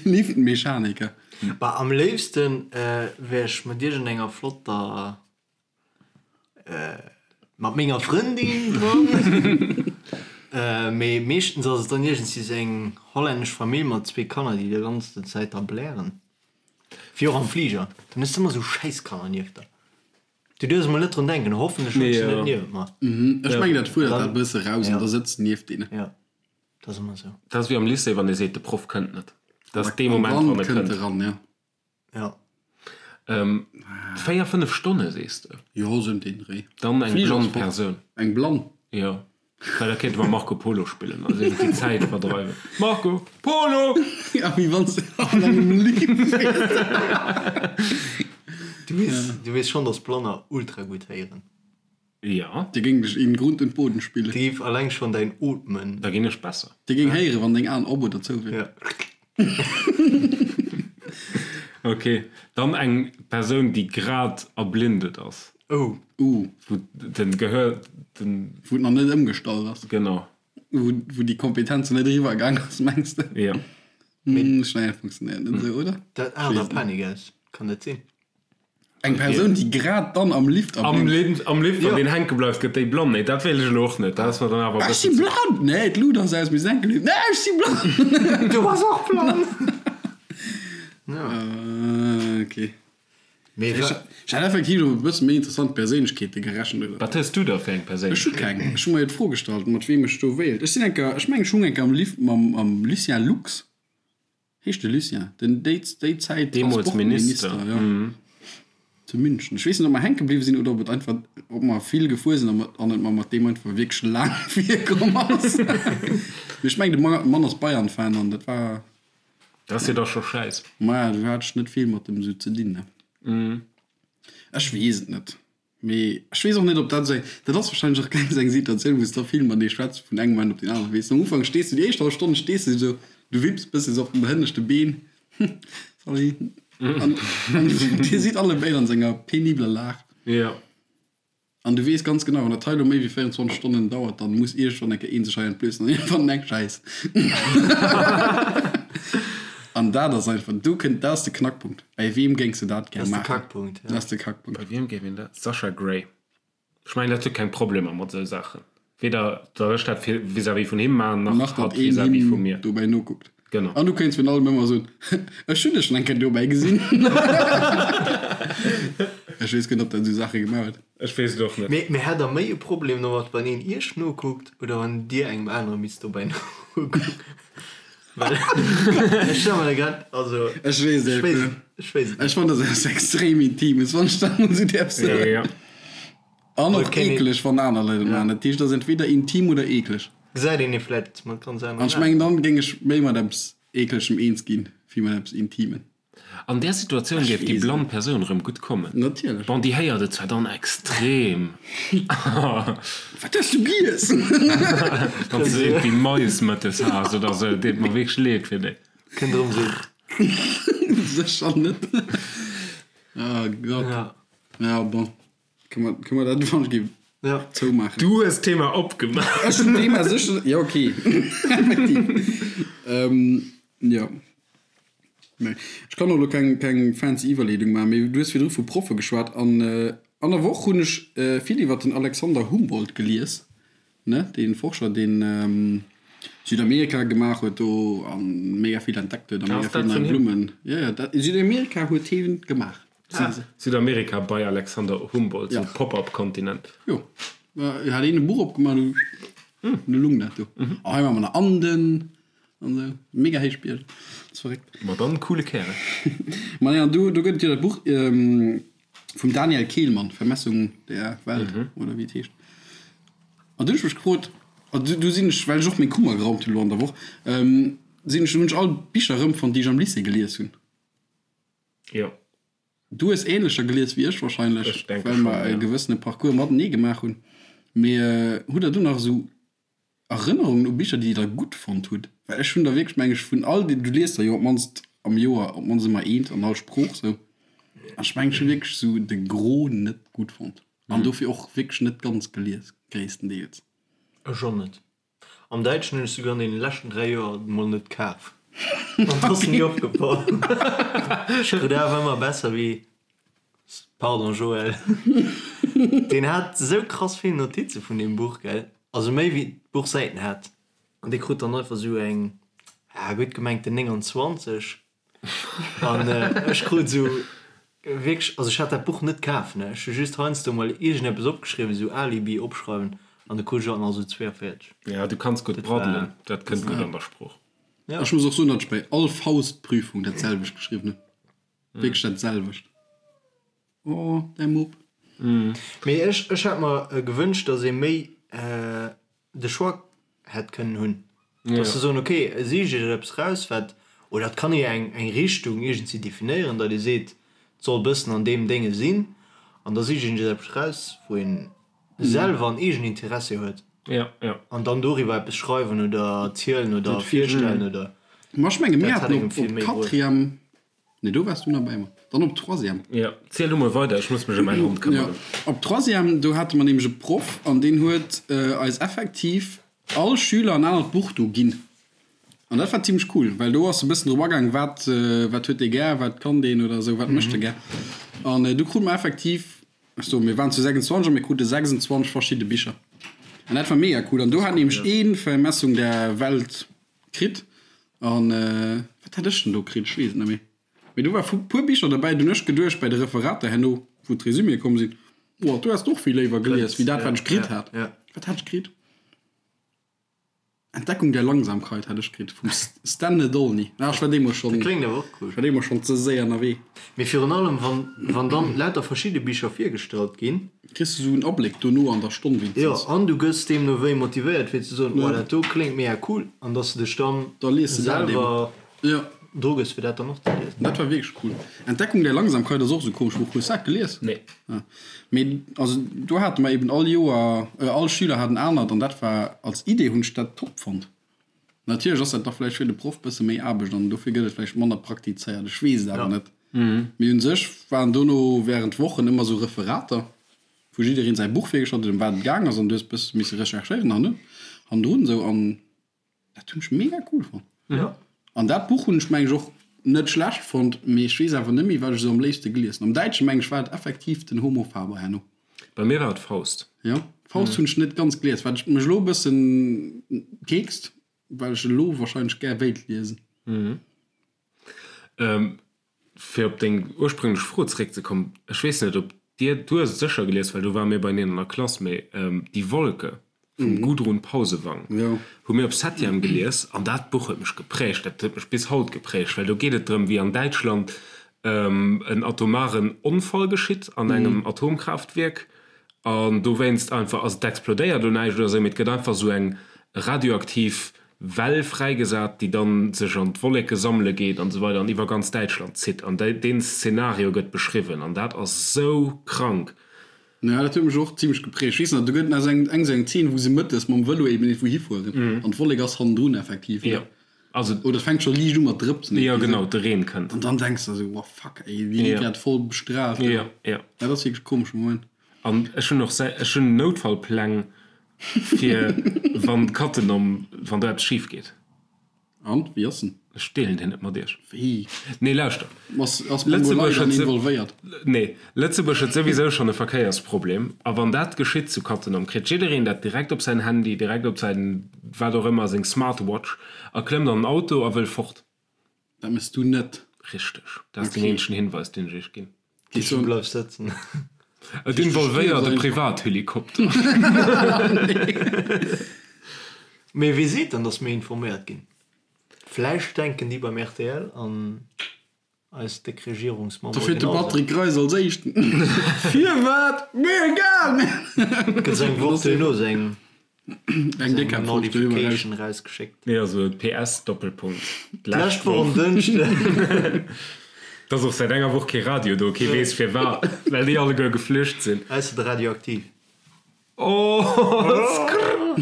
Liftmechaniker. Bah, am léifsten wär ech mat iergendenger flotter Mat menger Frëndin dran. Mee meeschtens ass et dann iergendwéi sou eng hollännesch Famill mat zwee Kanner, déi déi ganzen Zäit da blären. Wéi och am Fliger. Dann hues de ëmmer sou Schäisskanner nieft der. Du duerfs emol net drun denken, hoffentlech hunn ech se net niewent mer. Ech mengen dat fuerdert dat e bësse raus an da sëtz nieft deenen. Jo, dat ass ëmmer sou. Dat ass wéi am Lycée, wann ee seet, de Proff kënnt net. Dat ass dee Moment, wann e kënnt. Eran, ja. Ja. 4, 5 Stonne sees de? Jo, sou ëm deen Dréi. Dann eng blann Persoun. Eng blann? Jo, well da kéinte mer Marco Polo spillen a sech déi Zäit verdreiwen. Marco Polo! Ja, wéi wann s de an engem Lift wiers. Du weess, du weess schonn, dass Blanner ultra gutt héieren. Jo. Dir géing dech in Grund und Boden spillen. Dir géif alleng schonn däin Ootmen. Da ginn ech besser. Dir géing héieren, wann deng Aen op oder zou wieren. Ja. Ok, dann eng Persoun, déi grad erblindet ass. Oh. Uh. Wou den Gehör, den. Wou et nach net ëmgestallt ass. Genau. Wou, wou déi Kompetenz net eriwwer gaang ass, mengs de? Jo. Ech mengen, dat funktionéiert net esou, oder? Dat aart a Panik aus, kann dat sinn? Eng Persoun, déi grad dann am Lift Am Lift, am Lift, wann deen hänke bleift, gëtt déi blann. Nee, dat wéilt ech elo och net. Dat ass mer dann awer e Ech si bëssen ze. blann! Nee, d'Lut ass aus, mir sinn enke Lift. Nee, ech si blann! Du bass och blann! Ok. Mee Ech hat effektiv op e bësse méi interessant Perséinlechkeete gerechent, oder? Wat hues du da fir eng Ech hu Perséinlechkeet? keng. Ech hu mer jo d'Fro gestallt, mat weem ech do wéilt. Ech sinn enker, ech mengen, ech hung enker am Lift mam, mam Lucien Lux. Heescht de Lucien, den déi déi Zäit Deemools Minister, Transportminister, jo, zu München. Ech weess net, ob mer hänke bliwwe sinn oder ob et einfach, ob mer vill gefuer sinn an an et mer mat deem einfach wierklech laang virkomm ass. Mee ech mengen, de Mann ass Bayern-Fan an dat war. Dat ass jo da scho schäiss. Maja, do hat ech net vill mat dem esou ze dinn, ne. Ech weess et net. Mee ech weess och net, ob dat esou eng, dat ass wahrscheinlech och keng esou eng Situatioun, wou s de da vill matenee schwätz vun engem Moment op deen aneren. Weess de, am Ufank stees du, déi éischt hallef Stonn stees du esou, du wipps bësse sou op den hënneschte Been, sorry, an an dir sidd allebéid an esou enger penibeler Lag. Jo. An du weess ganz genau, wann dat hei elo méi wéi 24 Stonnen dauert, dann muss iergendwann eng Kéier een sech hei entblößen an iergendwann eng Schäiss. An dat ass einfach, do kënnt, dat ass de Knackpunkt. Bäi weem géings de dat gär Dat ass de maachen? Kackpunkt, ja. Dat ass de Kackpunkt. Bei wiem géif een dat? Sasha Grey. Ech mengen, dat huet keng Problemer mat esou Saachen. Weder datt ech dat fir vis-à-vis vun him maachen, nach Nach datt hatt een vis-à-vis vu him mir. dobäi nokuckt. Genau. An du kéints virun allem ëmmer soen, Ech hunn dech schonn eng Kéier dobäi gesinn. Ech weess guer net, ob dat esou Saache gemaach huet. Ech weess et och net. Mee, mee hätt der méi e Problem domat, wann een iech nokuckt oder wann dir engem anere misst dobäi nokucken? Well ech stelle mer da grad, also Ech weess et ech weess net. ech weess et Ech fannen dat eppes extrem Intimes, wann ech dat mol esou däerf soen. Ja. An och Kéint een- eekleg, wann aner Leit et maachen. Dat heescht, et ass entweder intim oder eekleg. Gesäit een ee vläit mat ganz aneren An ech Aen. mengen, dann géing ech méi mat eppes Eeklegem eens ginn, wéi mat eppes Intimen. An där Situatioun géif déi blann Persoun erëm gutt kommen. Natierlech. Bon, déi héiert et zwar dann extrem. Wat hues du giess? Wann s de iergendwéi Mais mëttes has oder sou, deet mer wierklech leed fir déi. Kënnt erëm sou. Sécher net. Oh Gott. Ja. Ja, bon. Kënne mer, kënne mer dat wann ech géif Ja. zoumaachen? Du hues d'Thema opgemaach. Ech hunn d'Thema sécher, jo, okay. Effektiv. Ähm, jo. Nee. Ech kann och elo keng, keng fancy Iwwerleedung maachen, mee du hues virdru vu Proffe geschwat an an der Woch hunn ech vill iwwer den Alexander Humboldt gelies, ne, dee Forscher, deen Südamerika gemaach huet do a mega vill entdeckt huet a mega vill nei Blummen. Jo, jo, dat Südamerika huet hien gemaach. Südamerika bei Alexander Humboldt, sou Pop-up-Kontinent. Jo, hat een e Buch opgemaach, du lung dat do. A hei hu mer nach Anden an esou, mega héich Bierger, dat ass verréckt. Ma dann, coole Kärel. Ma nee, an do gëtt et jo dat Buch vum Daniel Kehlmann, Vermessung der Welt, oder wéi et heescht. An du hunn ech mech gefrot, an du sinn ech, well ech och meng Kummer geraumt hunn elo an der Woch, sinn ech, hunn ech all d'Bicher erëmfonnt, déi ech am Lycée gelies hunn. Jo. Du hues ähnlecher gelies wéi ech wahrscheinlech, Ech denke well schon, mer e ja. gewëssene Parcours matenee gemaach hunn. Mee hutt der do nach esou Erënnerungen u Bicher, déi der gutt fonnt hutt? Well ech hunn der wierklech, meng ech, vun all den, du liest der jo op d'mannst am Joer op d'mannst ëmmer eent an all Sprooch sou, an ech mengen ech hu wierklech sou de Gros net gutt fonnt an dofir och wierklech net ganz gelies, gréisstendeels. Ech och net. Am Däitschen hunn ech souguer an deene leschten 3 Joer mol net kaf. An et ass ni opgefall. Ech krut awer ëmmer besser wéi, pardon Joël, deen hat esou krass vill Notize vun deem Buch, gell, also méi wéi d'Buch Säiten hat. An dee krut dann einfach esou eng, ja gutt gemengten 29. An ech krut esou wierklech, also ech hat dat Buch net kaf, ne, ech hu just heiansdo mol iergendeppes opgeschriwwen, esou Alibi opschreiwen, an du krut ech alt nach esou 42. Ja, du kanns gutt braddelen, dat kënnt gutt an der Sprooch. Ja. Ech muss och soen, datt ech bei all Faustprüfung dat selwecht geschriwwen hunn. Wierklech dat selwecht. Oh, däi Mupp. Mee ech, ech hätt mer gewënscht, datt ee méi de Choix hätt kënnen hunn, dass se soen, ok, sicht Iech eppes raus, wat, oder et kann ee jo eng eng Richtung iergendwéi definéieren, datt ee seet, et soll e bëssen an deem Dénge sinn, an da sicht een sech eppes raus, wou een selwer en eegenen Interessi huet, an dann doriwwer eppes schreiwen oder erzielen oder virstellen oder. Ma ech menge mir haten op Quatrième Nee, do waars du nach bäi mer. Dann op Troisième. Jo, ziel du mol weider, ech muss mech ëm mäin Hond këmmeren. Jo, op Troisième, do hate mer nämlech e Proff an deen huet eis effektiv all Schüler en anert Buch do ginn. An dat war zimmlech cool, well do ass e bëssen drop agaang, wat, wat huet dee gär, wat kann deen oder esou, wat mécht e gär. An du krute mer effektiv, ech soen, mir waren zu 26 a mir krute 26 verschidde Bicher. An dat war mega cool. An do hat nämlech ee Vermessung der Welt Kritt an wat hat ech denn do kritt? Ech weess et net méi. Mee do war vu puer Bicher derbäi, do hunn ech geduecht bäi de Referater herno, wou d'Resuméë komm sinn, Oh, do häss de och vill léiwer gelies wéi dat, wat ech kritt hat. Wat hat ech kritt? Entdeckung der Langsamkeit hat ech kritt vum Stan Nedolny. Ah, ech war deemools schonn, Dat kléngt awer och cool. ech war deemools schonn ze séier ënnerwee. Mee virun allem, wann, wann dann lauter verschidde Bicher virgestallt ginn. Kriss de sou en Abléck dono an der Stonn wéinstens. Jo, an du gëss deemno wéi motivéiert fir ze soen, oh dat do kléngt mega cool, an dass de dech dann Da lies de dat selwer dru gëss fir dat dann och ze liesen. Dat war wierklech cool. Entdeckung der Langsamkeit ass och sou komesch Buch. Hues dat gelies? Nee. Ah. Mee also do hate mer eben all Joer, all Schüler hat en anert an dat war als Idee hunn ech dat top fonnt. Natierlech ass dat da vläicht fir de Proff bësse méi Aarbecht an dofir gëtt et vläicht manner praktizéiert, ech weess et awer net. Mee un sech waren dono während Wochen ëmmer sou Referater, wou jiddereen säi Buch virgestallt huet, ëm wat et gaang ass an du hues bësse misse recherchéieren hanne hannendrun esou an dat hunn ech mega cool fonnt. An dat Buch hunn ech meng ech och net schlecht fonnt, mee ech weess awer net méi wat ech esou am léifste gelies hunn. Am Däitsche meng ech war et effektiv den Homo Faber herno. Bei mir war et Faust. Jo, Faust hunn ech net ganz gelies, wat mech elo e bëssen keekst, well ech elo wahrscheinlech gär wéilt liesen. Fir op deng ursprünglech Fro zeréckzekommen, ech weess net, ob dir, du hues et sécher gelies, well do ware mir beieneen an der Klass, mee Die Wolke vum Gudrun Pausewang hu mir op Septième gelies an dat Buch huet mech geprägt, dat huet mech bis haut geprägt, well do geet et drëm, wéi an Däitschland en atomaren Onfall geschitt an engem Atomkraaftwierk an dowéinst einfach, also et explodéiert elo näischt oder esou, mee et gëtt einfach esou eng radioaktiv Well fräigesat, déi dann sech an d'Wolleke sammele geet an esou weider an iwwer ganz Däitschland zitt an deen Szenario gëtt beschriwwen an dat ass esou krank. Jo, dat huet mech och zimlech geprägt. Ech weess nach, do gëtt nach eng esou eng Zeen, wou se mëttes mam Vëlo eben iergendwou hifueren an d'Wollek ass hannendrun effektiv, ne? Jo, also. Oder et fänkt scho liicht u mat drëpsen. Jo, genau, de Reen kënnt. An dann denks de esou, Wow, fuck, ey, déi gi grad voll bestrahlt. Jo, jo. Dat ass wierklech e komesche Moment. An ech hunn och, ech hunn Noutfallpläng fir wann d'Katten om, wann do eppes schif geet. An, wéi ass en? Ech deelen deen net mat iech. Wéi? Nee, lauschter. Ass, ass Mongolei dann involvéiert? Nee, Lëtzebuerg huet souwisou schonn e Verkéiersproblem. A wann dat geschitt zu Cattenom, kritt jiddereen dat direkt op säin Handy, direkt op säin wat och ëmmer, seng Smartwatch a klëmmt an den Auto a wëll fort. Dat mëss du net. Richteg. Dat ass den eenzegen Hinweis, deen ech iech ginn. Du bleifs sëtzen. Et involvéiert e Privathelikopter. Mee wee seet dann, datt mir informéiert ginn? Vläicht denken déi beim rtl an eis déck Regierungsmembere Da fiert de genau esou. Patrick Greis als éischten. Firwat? Mir egal! Gëtt se eng Woch duerno sou eng. Eng déck Eng Notification rausgeschéckt. Nee, also PS Doppelpunkt. D'lescht Woch um Dënschden. Et ass och säit enger Woch kee Radio do, kee weess firwat, well déi alleguer geflücht sinn. Ausser de Radioaktiv. Oh, skrrr.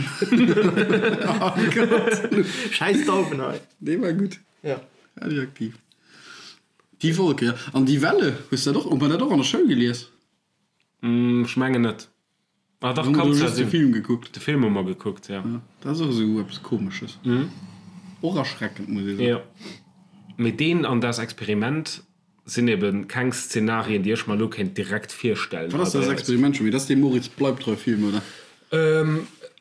Oh Gott. Schäiss Dauwen hei. Dee war gutt. Ja. Radioaktiv. Die Wolke, ja. An Die Welle, hues dat och, hu mer dat och an der Schoul gelies? Ech mengen net. Ah dach, Hu mer kann do zwar just de sinn. Film gekuckt. De Film hu mer gekuckt, ja. Ja, dat ass och esou eppes Komesches. Och erschreckend, muss ee soen. Jo. Mee deen an Das Experiment sinn eben keng Szenarien, déi ech mer elo kéint direkt virstellen Wat hei ass Das bei eis. Experiment scho méi? Dat ass dee Moritz Bleibtreu-Film, oder?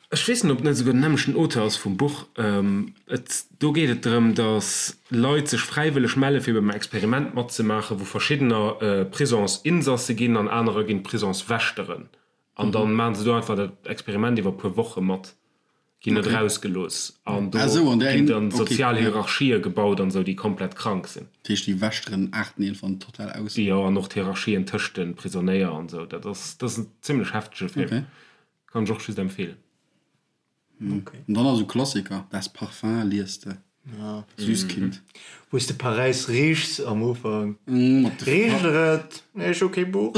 Ech weess net, ob et net esouguer den nämmlechten Auteur ass vum Buch. Et, do geet et drëm, datt Leit sech fräiwëlleg melle fir beim Experiment matzemaachen, wou verschiddener Prisonsinsasse ginn an anerer ginn Prisonswächteren. An dann maachen se do einfach dat Experiment iwwer e puer Woche mat, ginn net erausgelooss an do ginn dann sozial Hierarchië gebaut an esou, déi komplett krank sinn. Dat heescht, déi Wächteren aarten iergendwann total aus? Jo, an och d'Hierarchien tëscht de Prisonéier an esou. Dat ass, dat ass en zimlech heftege Film. Kann ech och just empfehlen. Okay. An dann ass esou Klassiker, Das Parfum liest de, Süßkind. Wou s de Paräis riechs am Ufank. Richt der et? Nee, ech hu kee Buch.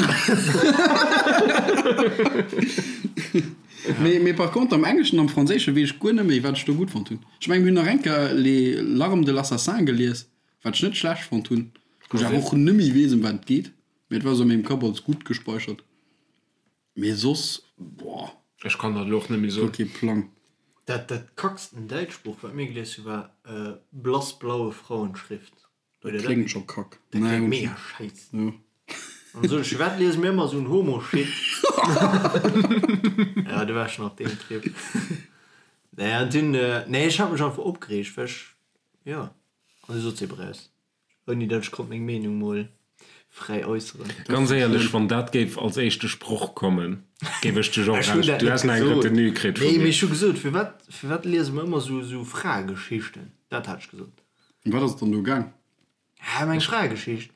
Mee, mee par contre am Engleschen, am Franséische weess ech guer net méi, wat ech do gutt fonnt hunn. Ech mengen, mir hunn nach eng Kéier Les larmes de l'assassin gelies, wat ech net schlecht fonnt hunn, wou ech awer och net méi weess, ëm wat et geet. Mee et war esou a mengem Kapp als gutt gespeichert. Mee soss, boah. Ech kann dat elo och net méi soen. Guer kee Plang. Dat dat kacksten däitscht Buch wat mir gelies hu war Blassblaue Frauenschrift. Dat kléngt scho kack. Dat kléngt mega schäiss. Jo. An sot ech, firwat liese mir ëmmer esou en Homo-Shit? Ja, du waars schon op deem Trip. Nee, an dunn, nee, ech hat mech einfach opgereegt, well ech, jo, an du sot se ebe raus. Ouni dat ech konnt meng Meenung mol fräi äusseren. Ganz éierlech, wann dat géif als éischte Sproch kommen, géif ech dech och Ech hunn raus. dat Du net häss nach eng gesot. Retenue kritt vu Nee, mee mir. ech hu gesot, firwat, firwat liese mer ëmmer sou, sou Fraegeschichten? Dat hat ech gesot. Ëm wat ass et dann do gaang? Hä, ëm eng Fraegeschicht.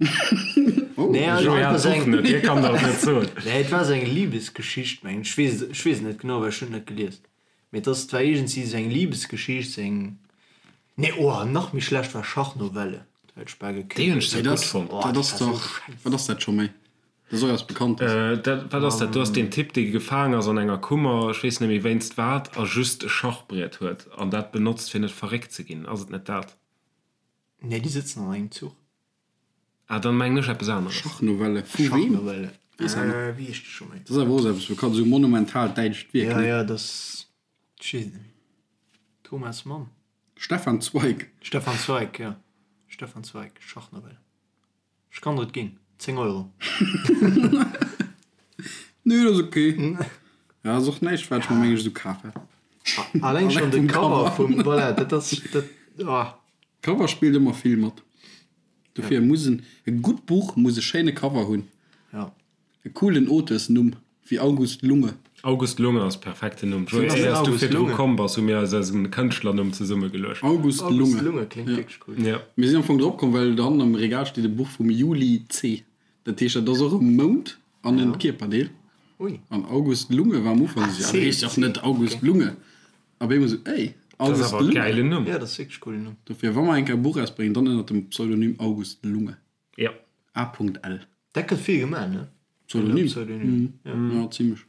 Oh. Nee, also Joé einfach hat sou d'Buch eng, net, hie kann der et net soen. nee, et war sou eng Libesgeschicht, mengen ech. Ech weess et, ech weess et net genau, well ech hunn et net gelies. Mee et ass, et war iergendwéi sou eng Libesgeschicht, sou eng. Nee, oh, nach méi schlecht war Schachnovelle. Dat hätt ech bal Déi hunn ech gekillt. zwar Mee gutt dat, fonnt. Oh, dat dat ass war sou dach, scheiss. wat ass dat scho méi? Dat ass och eppes Bekanntes. Dat, wat ass dat? Do ass deen Typ, dee gefaang ass an enger Kummer, ech weess net méi wéinst wat, a just e Schachbriet huet an dat benotzt, fir net verréckt ze ginn. Ass et net dat? Nee, déi sëtzen an engem Zuch. Ah, dann mengen ech eppes aneres. Schachnovelle vu weem? Schachnovelle. Weess awer net. Wéi heescht déi scho méi? Dat ass awer och esou eppes Bekanntes, esou monumentalt däitscht Wierk, Ja, ne? ja, dat ass, ech weess et net méi. Thomas Mann. Stefan Zweig. Stefan Zweig, ja. Stefan Zweig, Schachnovelle. Ech kann der et ginn. 10 Euro. Nee, dat ass ok. Ja, ass och näischt, wat ech mer meng ech esou kaf hätt. Alleng schonn de vum Cover Cover. vum, voilà, dat ass, dat, ah. Cover spillt ëmmer vill mat. Dofir muss en, e gutt Buch muss e schéine Cover hunn. Ja. E coolen Auteursnumm, wéi August Lunge. August Lunge ass perfekten Numm. Joé, ass éiers du August virdru Lunge? komm bass, hu mir eis eisen Kënschtlernumm zesummegeluecht. August August Lunge. Lunge kléngt wierklech cool. Ja. Mir sinn am Fong drop komm, well dohannen am Regal steet e Buch vum Juli Zeh. Dat heescht, dat ass och e Mount an en Kierperdeel. Ui. An August Lunge war am Ufank esou, ja, dat heescht dach net August Lunge. A op eemol esou, ey, Dat ass August awer e Lunge. gäilen Numm. Ja, dat ass wierklech e coolen Numm. Dofir, wa mer eng Kéier e Buch erausbréngen, dann ënnert dem Pseudonym August Lunge. Ja. A.L. Dat gëtt vill gemaach, ne? Pseudonym? Pseudonym, ja. Ja, zimlech.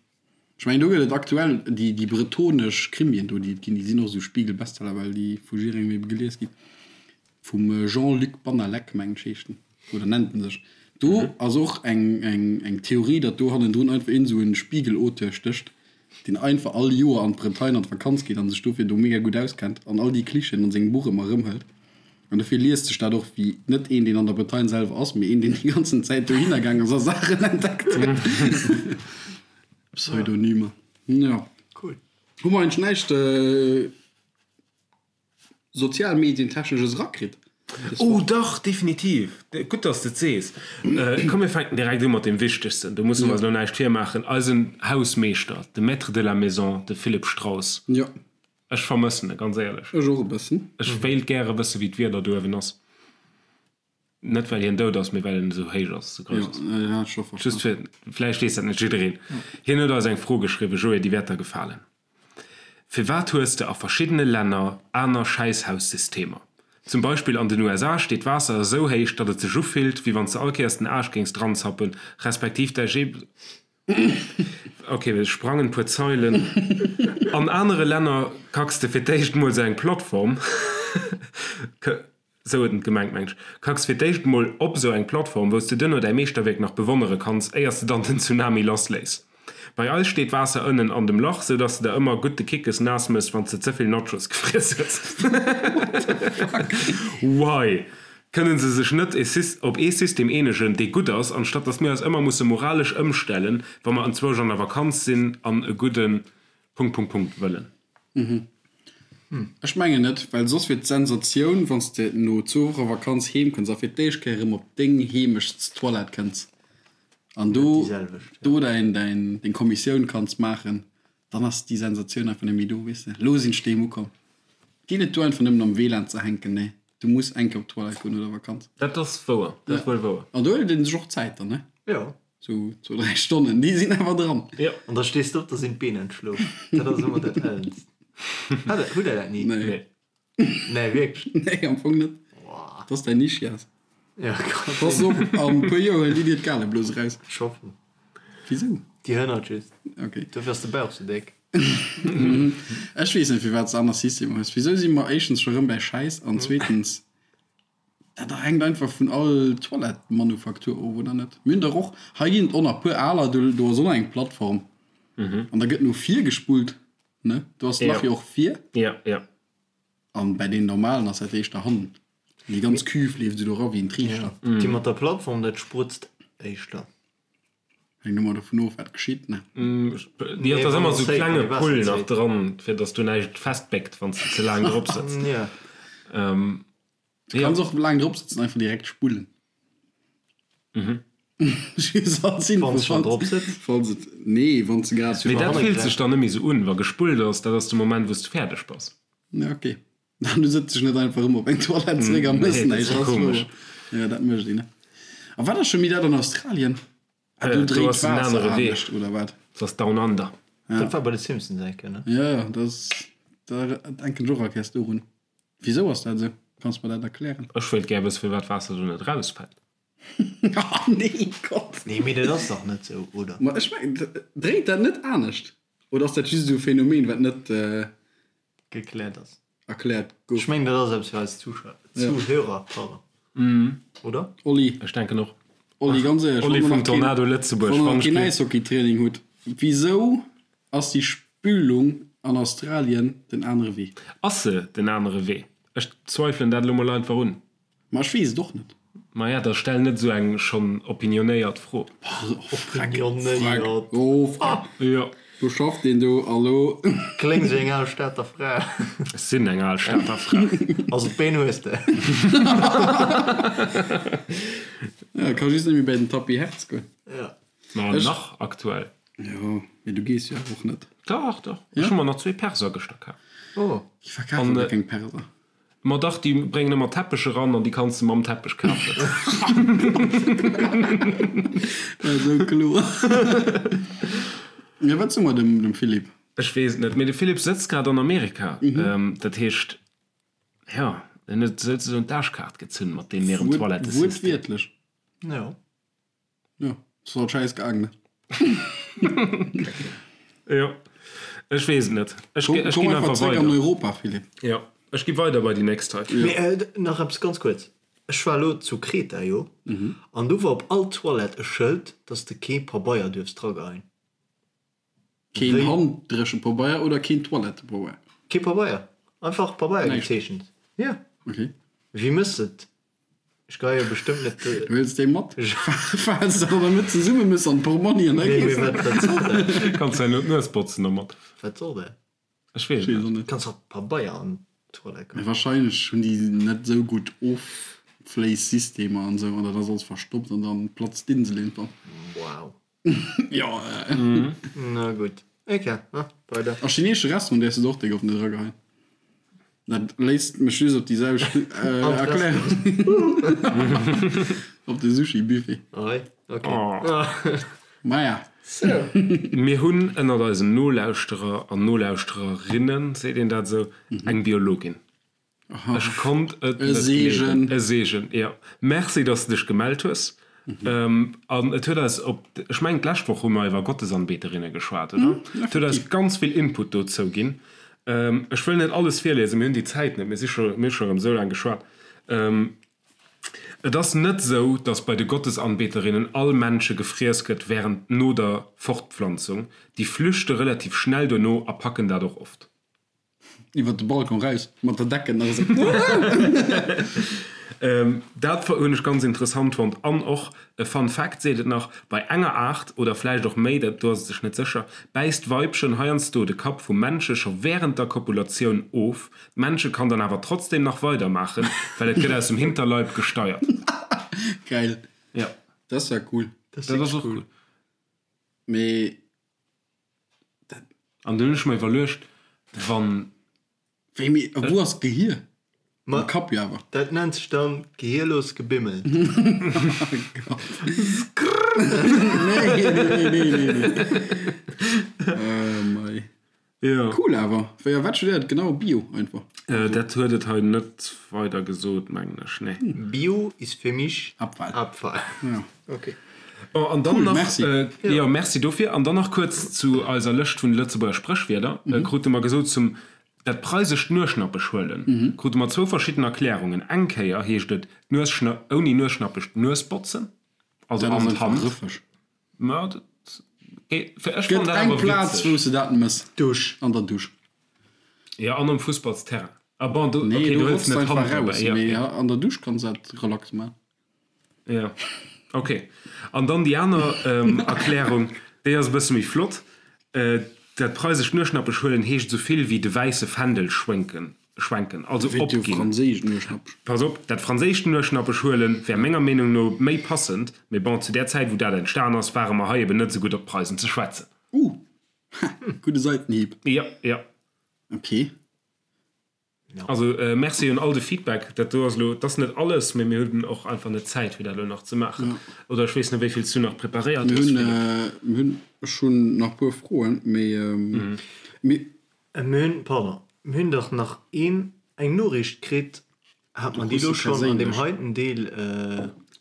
Ech mengen, do gëtt et aktuell déi, déi bretonesch Krimien do, déi et ginn, déi sinn och esou Spiegel-Bestseller, well déi vu jidderengem ebe gelies ginn. Vum Jean-Luc Bannalec, mengen ech, heescht en, oder nennt en sech. Do ass och eng, eng, eng Theorie, datt do hannendrun einfach iergend esou e Spiegel-Auteur stécht. deen einfach all Joer an d'Bretagne an d'Vakanz geet an sech dofir do mega gutt auskennt an all déi Klischeeën an sengem Buch ëmmer erëmhëlt. An dofir liest sech dat och wéi net een, deen an der Bretagne selwer ass, mee een, deen déi ganzen Zäit dohinner gaang ass a Saachen entdeckt huet. Pseudonymer. Jo. Cool. Hu mer eigentlech näischt Sozialmedientechnesches erakritt? Oh dach, definitiv! Gutt, dass de et sees. Komm, mir fänken direkt u mat deem Wichtegsten, do musse mer eis elo näischt virmaachen, eisen Hausmeeschter, de Maître de la maison, de Philippe Strauss. Jo. Ech vermëssen e, ganz éierlech. Ech och e bëssen. Ech wéilt gäre wësse wéi d'Wieder do uewen ass. Net well hien dout ass, mee well en esou héich ass, esou grouss ass. Jo, hat ech scho verstanden. Just fir, vläicht weess dat net jiddereen. Hien huet eis eng Fro geschriwwen, Joé, déi wäert der gefalen. Firwat hues de a verschiddene Länner aner Schäisshaussystemer? Zum Beispill an den USA steet d'Waasser esou héich, datt et sech ufillt, wéi wann s de all Kéiers den Aarsch géings dranzappen, respektiv däi Ok, ech sprangen puer Zeilen. An anere Länner kacks de fir d'éischt mol sou eng Plattform, sou huet en et gemengt meng ech, kacks fir d'éischt mol op sou eng Plattform, wou s de duerno däi Meeschterwierk nach bewonnere kanns, éiers de dann den Tsunami lassléiss. Bei eis steet Waasser ënnen an dem Lach, sou dass de der ëmmer gutt de Kickes naass mëss, wann s de ze vill Nachos gefriess hues. Why? Kënnen se sech net op ee System eenegen, dee gutt ass, anstatt datt mir eis ëmmer musse moralesch ëmstellen, wa mer enzwousch an der Vakanz sinn an e gudde Punkt, Punkt, Punkt wëllen? Ech mengen net, well soss wier d'Sensatioun, wann s de no zwou Woche Vakanz heem kënns a fir d'éischt Kéier erëm op deng Heemechtstoilette kënns an do do däin deng Kommissioun kanns maachen, Dann ass déi Sensatioun einfach net méi do, weess de. Elo sinn ech doheem ukomm. Geet net duer einfach nëmmen am WLAN ze hänken, nee, du muss eng Kéier op d'Toilette goen no der Vakanz. Dat ass wouer, dat ass wuel wouer. An do huelt een sech och Zäit dann, ne? Jo. Sou zwou, dräi Stonnen, déi sinn awer dran. Jo. An da stees de op, da sinn d'Been entschlof. Dat ass ëmmer dat Ellenst. Hat, hutt der dat ni? Nee. Nee, wierklech? Nee, am Fong net. Boah. Dat ass däin Ischias. Ja, kann Pass sinn. op, an e puer Joer huelen déi dir d'Galeblose raus. Ech hoffen. Wisou? Déi hënnert just. Okay. Dofir ass de Bauch sou déck. Ech weess net, firwat s de aner Systemer hues. Wisou si mer éischtens scho rëm bäi Schäiss an zweetens, dat hänkt einfach vun all Toilettemanufaktur of, oder net? Mir hunn dach och, hei ginn et och nach puer aler, do do ass och nach eng Plattform an da gëtt no vir gespullt, ne? Do ass d'Lach jo och vir. Ja, ja. An bäi deenen normalen ass dat éischter hannen. Déi ganz Cuve leeft esou do era wéi en Triichter. Déi mat der Plattform, dat sprutzt éischter. Hänkt ëmmer dovun of, wat geschitt, ne? Jo, et ass ëmmer esou klenge Pull nach dran, fir dass do näischt festbéckt, wann s de ze laang drop sëtz. Du kanns och laang drop sëtzen, einfach direkt spullen. Just als Info, Wann s schon drop sëtz? Falls et, nee, wann s de grad. Mee dat fillt sech dann net méi esou un, wa gespullt ass. Dat ass de Moment, wou s de fäerdeg bass. Ja, ok. An du sëtz dech net einfach erëm op eng Toilette zeréck a mëss näischt. Nee, dat ass komesch. Jo, dat mécht een, ne? A wat ass scho méi dat an Australien? Ah, do Do dréit ass en d'Waasser anere Wee. anescht, oder wat? Dat ass Down Under. Dat war bei de Simpsons eng Kéier, ne? Jo, jo, dat ass, da denken ech och all Kéiers dorun. Wisou ass dat esou? Kanns mer dat erklären? Ech wéilt gär wësse firwat d'Waasser do net erausfält. Oh nee, Gott! Nee, mee dat ass dach net esou, oder? Ma ech mengen, dréit dat net anescht? Oder ass dat just esou e Phänomen, wat net. Gekläert ass. Erkläert gouf. Ech mengen dat ass eppes fir eis Zuschauer, Zuhörer, pardon, oder? Olli. Ech denken och. Olli, ganz éierlech, Olli wann vum der nach keen, Tornado Lëtzebuerg, wann der wann nach keen ech. Äishockeytraining hutt, wisou ass déi Spülung an Australien den anere Wee? Ass se den anere Wee? Ech zweifelen dat elo mol einfach un. Ma ech weess et och net. Maja, da stell net esou eng schonn opinionéiert Fro. Opinionéiert. Oh, freck. Jo. Do schafft een do, hallo. Kléngs wéi eng al Stater Fra. Ech sinn eng al Stater Fra. Also d'Been hues de. Ja, ka just net méi bäi den Tapis Hertz goen. Ja. Ma nach aktuell. Jo, mee du gees jo awer och net. Dach, dach. Ech hu mer nach zwee Perser gëschter kaf. Oh. Déi verkafen der keng Perser. Ma dach, déi bréngen ëmmer Teppech eran an déi kanns de mam Teppech kafen. Esou kloer. Jo, wat soe mer dem, dem Philippe? Ech weess et net, mee de Philippe sëtzt grad an Amerika. Dat heescht, jo, en huet souzesoen d'Aarschkaart gezunn mat deem hirem Toilettesystem. Wuertwiertlech. Jo. Jo, ass halt schäiss gaang, ne? Jo, ech weess et net. Ech Komm, ech komm ginn einfach einfach zréck an weider. Europa, Philippe. Jo, ech gi weider bei déi nächst hei. Mee nach eppes ganz kuerz, Ech war elo zu Kreta, jo, an do war op all Toilette e Schëld, dass de kee Pabeier duerfs drageheien. Keen Handdréchepabeier oder keen Toilettepabeier? Kee Pabeier, einfach Pabeier gezeechent. Jo. Ok. Wéi mëss de et? Ech geheie jo bestëmmt net. Du huels déi mat, falls de der net zesumme mëss an d'Portmonni an da Nee, mee wat, wat soll dat? Kanns däin no d'Nues botzen domat. Wat soll dat? Ech weess et net. Kanns och Pabeier an d'Toilette geheien. Wahrscheinlech hunn déi net esou gutt Offléissystemer an esou an dat ass alles verstoppt an dann platzt d'Insel iergendwann. Wow. Jo. Na gutt. Ok, weider. A chineesche Restaurant däerfs de der och déck op net erageheien. Dat léisst mech just op déi selwecht Erklärung. Op de Sushi-Buffet. Oi, ok. Maja. Sou. Mir hunn ënnert eisen Nolauschterer an Nolauschtererinnen, seet een dat esou, eng Biologin. Ech konnt et net gleewen. E Seegen, jo. Merci, dass de dech gemellt hues. An et huet eis op, ech mengen d'lescht Woch hu mer iwwer Gottesanbeterinne geschwat, oder? Et huet eis ganz vill Input dozou ginn. Ech wëll net alles virliesen, mir hunn déi Zäit net, mir si scho, mir hu scho erëm esou laang geschwat. Et ass net esou, dass bei de Gottesanbeterinnen all Männche gefriess gëtt wärend no der Fortpflanzung. Déi flüchte relativ schnell duerno a packen dat och oft. Iwwer de Balcon raus, mat der Decken nach esou. Dat hunn ech ganz interessant fonnt. An och e Fun Fact seet et nach, Bei enger Aart, oder vläicht och méi, dat do ass et sech net sécher, bäisst d'Weibchen heiansdo de Kapp vum Männche scho wärend der Kopulatioun of. D'Männche kann dann awer trotzdem nach weidermaachen, well et gëtt aus dem Hinterleib gesteiert. Geil. Jo. Dat ass ja cool. Dat ass och cool. Mee An dunn hunn ech mer iwwerluecht, wann. Wéi, mee a wou ass d'Gehier? Am Kapp jo awer. Dat nennt sech dann gehierlos gebimmelt. Nee, nee, nee, nee, nee. Oh mei. Jo. Cool awer. Wéi a wat studéiert genau? Bio einfach? Dat huet et hei net weider gesot, mengen ech, nee. Bio ist für mich Abfall. Abfall. Ja. Ok. Bon, an dann Cool, nach, merci. Jo, merci dofir. An dann nach kuerz zu eiser Lëscht vun de Lëtzebuerger Spréchwierder. Krute mer gesot, zum dat preisescht Nueschnappesch huelen, krute mer zwou verschidden Erklärungen. Eng Kéier heescht et, d'Nuesschna-, ouni Nueschnappesch d'Nues botzen, also Dat ass an einfach d'Hand. rëffeg. Ma dat, ech Gëtt fannen dat eng awer Plaz, witzeg. wou s de dat mëss. Dusch. An der Dusch. Jo, an um Fussballsterrain. Ah bon, do, Nee, okay, do du hëls rotz de net einfach d'Hand raus, dobäi, ja, mee ja. an der Dusch kanns de dat relax maachen. Ja, okay. An dann déi aner Erklärung, déi ass e bësse méi flott, Dat preisescht Nueschnappesch huelen heescht esou vill wéi de wäisse Fändel schwenken, schwenken, also Wéi de opginn. franséischen Nueschnappesch. Pass op, dat franséischt Nueschnappesch huelen wär menger Meenung no méi passend, mee bon, zu där Zäit wou dat entstan ass, ware mer hei eben net esou gutt op d'Preisen ze schwätzen. Uh, ha, gudde Seitenhieb. Jo, jo. Okay. Also Merci un all de Feedback. Dat do ass elo, dat ass net alles, mee mir hunn och einfach net d'Zäit fir dat elo nach ze maachen. Oder ech weess net wéi vill s du nach preparéiert Mir hues, hunn, Philippe. mir hunn, ech hunn nach puer Froen, mee mir. Mir hunn, pardon, mir hunn dach nach een, eng Noriicht kritt. Hat mer déi elo schonn an deem heiten Deel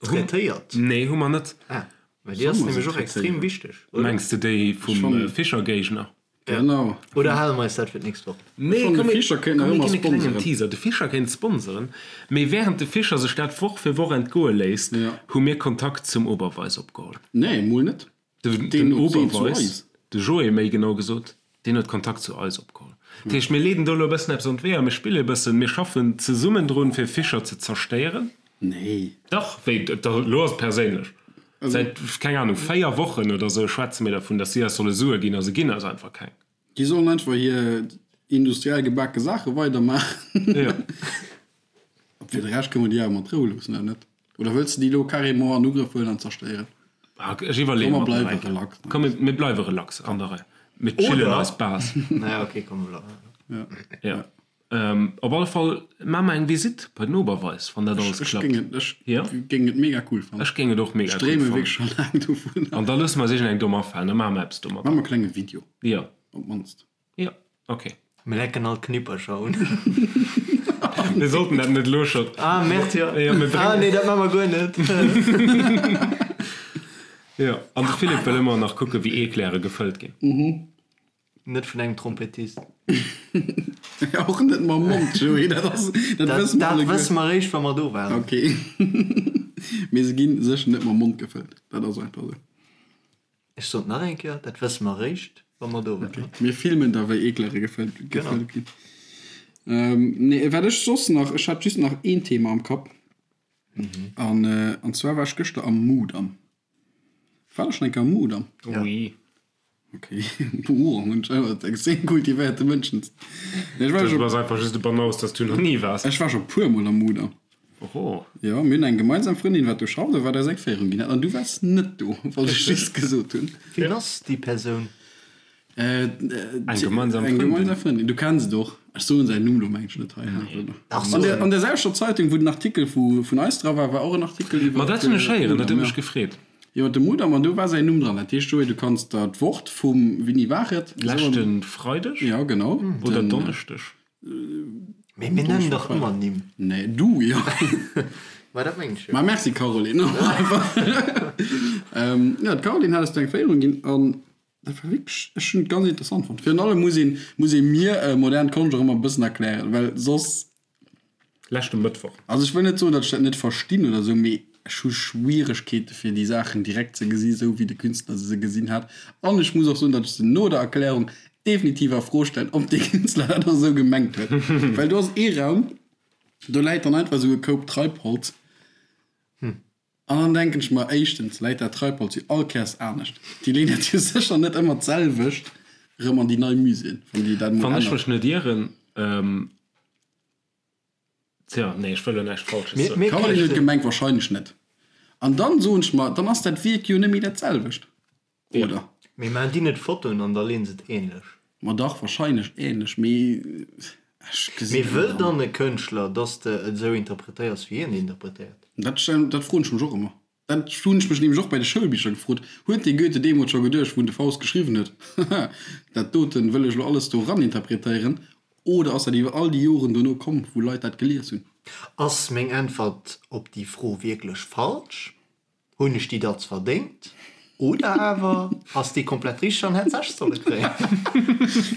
traitéiert? Nee, hu mer net. Ah, well déi ass nämlech och extrem wichteg, oder? Mengs de déi vum Fischer-Géigner? Genau. Oder hale mer eis dat fir d'nächst Woch? Nee, Schonn de komm, mir Fischer kéint nach komm, mir ëmmer ginn e klengen sponseren. Teaser. De Fischer kéint sponseren, mee während de Fischer sech dat Woch fir Woch entgoe léisst, Ja. hu mir Kontakt zum Oberweis opgeholl. Nee, mol net. De, Deen den huet deen zu Oberweis, eis. de Joé méi genau gesot, deen huet Kontakt zu eis opgeholl. Dat heescht, mir leeden do elo e bëssen eppes an d'Weeër, mir spille e bëssen, mir schaffen zesummen drun, fir Fischer ze zerstéieren. Nee. Dach, wéi, da, elo ass et perséinlech. Säit, keng Ahnung, 4 Wochen oder sou schwätze mir dervun, dass si eis solle Sue ginn a se ginn eis einfach keng. Déi sollen einfach hir industriell gebake Saache weidermaachen. Jo. A fir de Rescht kënne mer déi awer mat Rou loossen, oder net? Oder wëlls de déi elo carrément an Ugrëff huelen an zerstéieren? Ah, ech iwwerleeë Komm, mer mer nach bleiwe eng Kéier. relax. Komm, mir, mir bleiwe relax an der Rei. Mir chillen Oder? eis Bas. Naja, okay, komm, mir bleiwen. Ja. Op alle Fall maa mer eng Visite bei den Oberweis, wann dat alles Ech klappt. géing et, ech Ja. géing et mega cool fannen. Ech géing et och mega Ech cool dreeme fannen. wierklech scho laang dovun. An da loosse mer eis iergendeng domm afalen, da maache mer eppes domadder. Maache mer e klenge Video, Ja. op d'mannst. Ja, ok. Mir lecken all d'Knippercher un. Mir sollten dat net elo scho. Ah, Merde, jo. Ja, mir Ah, bréngen. nee, dat maache mer guer net. Ja, an de Philippe wëll ëmmer nach kucken, wéi Eclaire gefëllt ginn. Net vun engem Trompettist. Och net mam Mond, Joé, dat ass, dat wësse mer Dat alleguer. wësse mer eréischt, wa mer do waren. Ok. Mee se gi sécher net mam Mond gefëllt, dat ass einfach esou. Ech sot nach eng Kéier, dat wësse mer eréischt, Wa mer do waren. Mir filmen da wéi Eeklere gefëllt ginn. Nee, wat ech soss nach, ech hat just nach een Thema am Kapp. An an zwar war ech gëschter am Mudam. War der schonn eng Kéier am Mudam? Oui. Okay. Boah, hunn ech awer mat extrem kultivéierte Mënschen. Nee, ech war Du bass einfach just e Banaus, dass du nach ni waars. Ech war scho puer mol am Mudam. Oho. Jo, mir hunn eng gemeinsam Frëndin, wat do schafft a wat eis eng Féierung ginn hat. An du waars net do, wollt ech just gesot hunn. Wien ass déi Persoun? Eng gemeinsam Eng gemeinsam Frëndin. Du kenns et och. Ech soen säin Numm lo mengen ech net hei. An der, an der selwechter Zeitung, wou den Artikel vu, vun eis dra war, war och en Artikel iwwer. Ma dat hunn ech héieren, dat huet mech gefreet. Iwwer de Mudam, an do war säin Numm dran. Dat heescht, Joé, du kanns der d'Wort vum, wéini war et? Leschte Freideg? Jo, genau. Oder Donneschdeg? Mee mir nennen dach ëmmer Nimm. Nee, du jo. Ma dat mengen ech jo. Ma merci Caroline. Jo, d'Caroline hat eis do eng Féierung ginn an dat war wierklech, ech hunn et ganz interessant fonnt. Virun allem muss een, muss ee mir modern Konscht och ëmmer e bëssen erklären, well soss. Leschte Mëttwoch. Also ech wëll net soen, datt ech dat net verstinn oder esou, mee ech hu Schwieregkeete fir déi Saachen direkt ze gesi sou wéi de Künstler se gesinn hat. An ech muss och soen, datt ech se no der Erklärung definitiv a Fro stellen, ob dee Künstler dat och esou gemengt huet. Well do ass ee Raum, do läit dann einfach esou e Koup Treibholz. An dann denken ech mer, éischtens läit dat Treibholz jo all Kéiers anescht. Déi leeën dat jo sécher net ëmmer d'selwecht erëm an déi nei Muséeën, wann déi dat emol Wann ech änneren. mech net ieren, Tja, nee, ech wëll elo näischt Falsches soen. Mir Caroline huet gemengt, wahrscheinlech net. An dann soen ech mer, dann ass dat Wierk jo net méi dat selwecht, oder? Mee maachen déi net Fotoen an da leeën se et ähnlech? Ma dach, wahrscheinlech ähnlech, mee ech gesinn Mee wëll dann e Kënschtler, dass de et esou interpretéiers, wéi hien et interpretéiert? Dat, dat froen ech mech och ëmmer. Dat hunn ech mech nämlech och bei de Schoulbicher gefrot. Huet dee Goethe deemools scho geduecht, wou en de Faust geschriwwen huet, Haha, dat doten wëll ech elo alles do eran interpretéieren? Oder ass dat iwwer all déi Joren dono komm, wou Leit dat gelies hunn? Ass meng Äntwert op déi Fro wierklech falsch? Hunn ech déi Datz verdéngt? Oder awer ass déi komplett richteg an hätt sech solle kréien?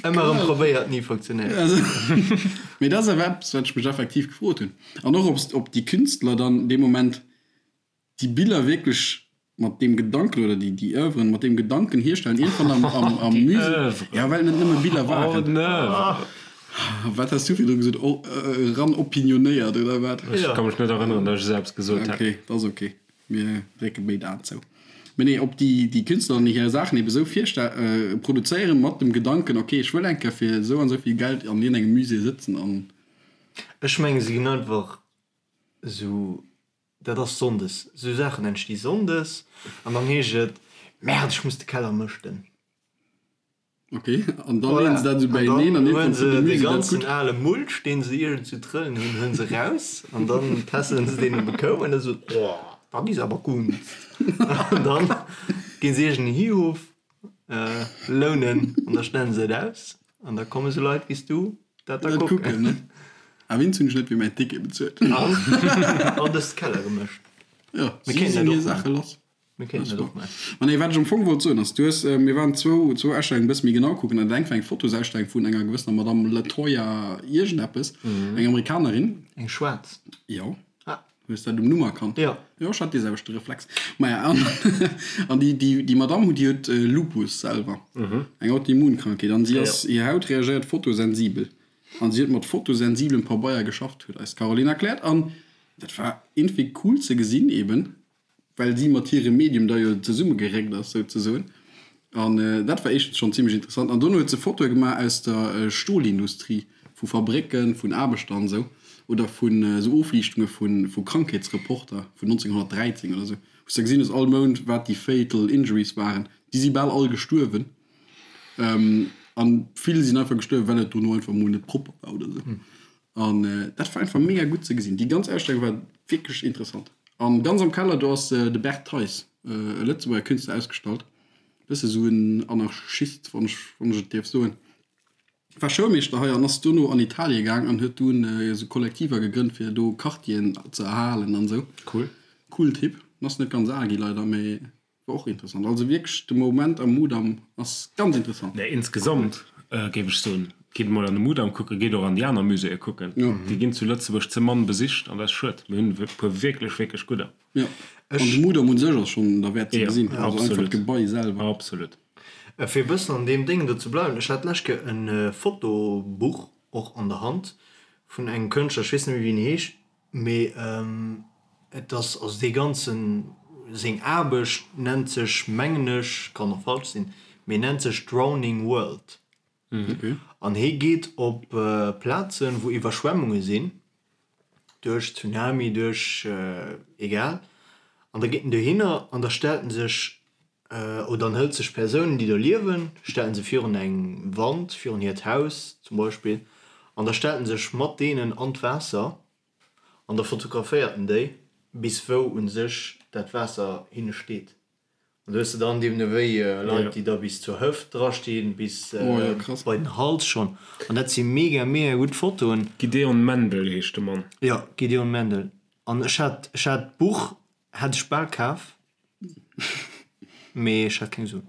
Ëmmer erëm probéiert, ni funktionéiert. Mee dat ass awer eppes, wat ech mech effektiv gefrot hunn. An och, ob déi Künstler dann dee Moment déi Biller wierklech mat deem Gedanken oder déi déi Oeuvren mat deem Gedanken hierstellen, iergendwann am am am Musée, ja well et net nëmme Biller waren. Wat has du virdru gesot? O eran opinionéiert oder wat? Ech ka mech net erënneren, datt ech esou eppes gesot hätt. Okay, dat ass okay. Mir drécke béid Aen zou. Mee nee, ob déi déi Künstler dann hir Saachen ebe sou virste produzéieren mat dem Gedanken, okay, ech wëll eng Kéier fir esou an esou vill Geld an iergendengem Musée sëtzen an. Ech menge se ginn einfach esou Dat ass sonndes. Sou Saachen entsti sonndes an dann heescht et, Merde, ech muss de Keller mëschten. Ok, an da leeën se dat esou beieneen an iergendwann fënnt de Musée dat gutt. Dann huelen se de ganzen ale Mulch, deen se iergendwou trëllen hunn, huelen se raus an dann tässelen se deen op e Koup an da sou, Oh, dat is awer Kunst. An dann ginn se iergend en Hihof lounen an da stellen se et aus an da komme sou Leit wéi s du dat da kucken. A wéinst hunn ech net fir mäin Ticket bezuelt. An an dës Keller gemëscht. Jo, si sinn hir Saache lass. Mir kéinten dat och maachen. Ma nee, wat ech am Fong wollt soen ass, du hues, mir waren zwou, zwou Ausstellungen e bësse méi genau kucken an dat eng war eng Fotosausstellung vun enger gewëssener Madame Latoya iergendeppes, eng Amerikanerin. Eng schwaarz? Jo. Ah. Hues dat um Numm erkannt? Jo. Jo, ech hat dee selwechte Reflex. Maja, an, an déi, déi, déi Madame, déi huet Lupus selwer, eng Autoimmunkrankheet, an si ass, hir Haut reagéiert fotosensibel. An si huet mat fotosensiblem Pabeier geschafft, huet eis d'Caroline erkläert. An dat war iergendwéi cool ze gesinn, eben well si mat hirem Medium da jo zesummegeréckt ass, souzesoen. An dat war éischtens schonn zimmlech interessant. An dono huet se Fotoe gemaach aus der Stolindustrie, vu Fabrécken, vun Aarbechter an esou, oder vun esou Ofliichtunge vu Krankheetsreporter vun 1913 oder esou, wou s de gesinn hues all Mount, wat déi fatal injuries waren. Déi si bal all gestuerwen. An vill sinn einfach gestuerwen, well et dono einfach mol net propper war oder esou. An dat war einfach mega gutt ze gesinn. Déi ganz Ausstellung war wierklech interessant. An ganz am Keller do ass de Bert Theis, e Lëtzebuerger Künstler, ausgestallt. Bësse sou en Anarchist, wann ech, wann ech et dierf soen. War Schoulmeeschter hei an ass dono an Italie gaang an huet dunn esou Kollektiver gegrënnt, fir do Quartieren ze erhalen an esou. Cool. Cool Typ. Ass net ganz al gi leider, mee War och interessant. Also wierklech de Moment am Mudam ass ganz interessant. Nee, insgesamt géif ech soen, gitt emol an de Mudam kucken, gitt och an déi aner Muséeë kucken. Déi ginn zu Lëtzebuerg ze mann besicht an dat ass schued. Mir hunn e puer wierklech, wierklech gudder. Jo, an de Mudam un sech ass schonn derwäert ze gesinn. Also einfach d'Gebai selwer. Absolut. Fir e bëssen an deem Déngen do ze bleiwen, ech hat d'lescht Kéier e Fotobuch och an der Hand vun engem Kënschtler, ech weess net méi wéi en heescht, mee et ass, also dee ganzen, seng Aarbecht nennt sech, mengen ech, kann och falsch sinn, mee nennt sech Drowning World. An hie geet op Plazen, wou Iwwerschwemmunge sinn, duerch Tsunami, duerch egal, an da geet en dohinner an da stellt en sech, oder en hëlt sech Persounen, déi do liewen, stellt en se virun eng Wand, virun hiert Haus zum Beispill, an da stellt en sech mat deenen an d'Waasser an da fotograféiert en déi, bis wou u sech dat Waasser hinne steet. An do hues de dann deemno wéi Leit, déi da bis zur Hëft drastinn, bis bei den Hals schonn. An dat si mega, mega gutt Fotoen. Gideon Mendel heescht de Mann. Jo, Gideon Mendel. An ech hat, ech hat d'Buch hat ech bal kaf, mee ech hat keng Suen.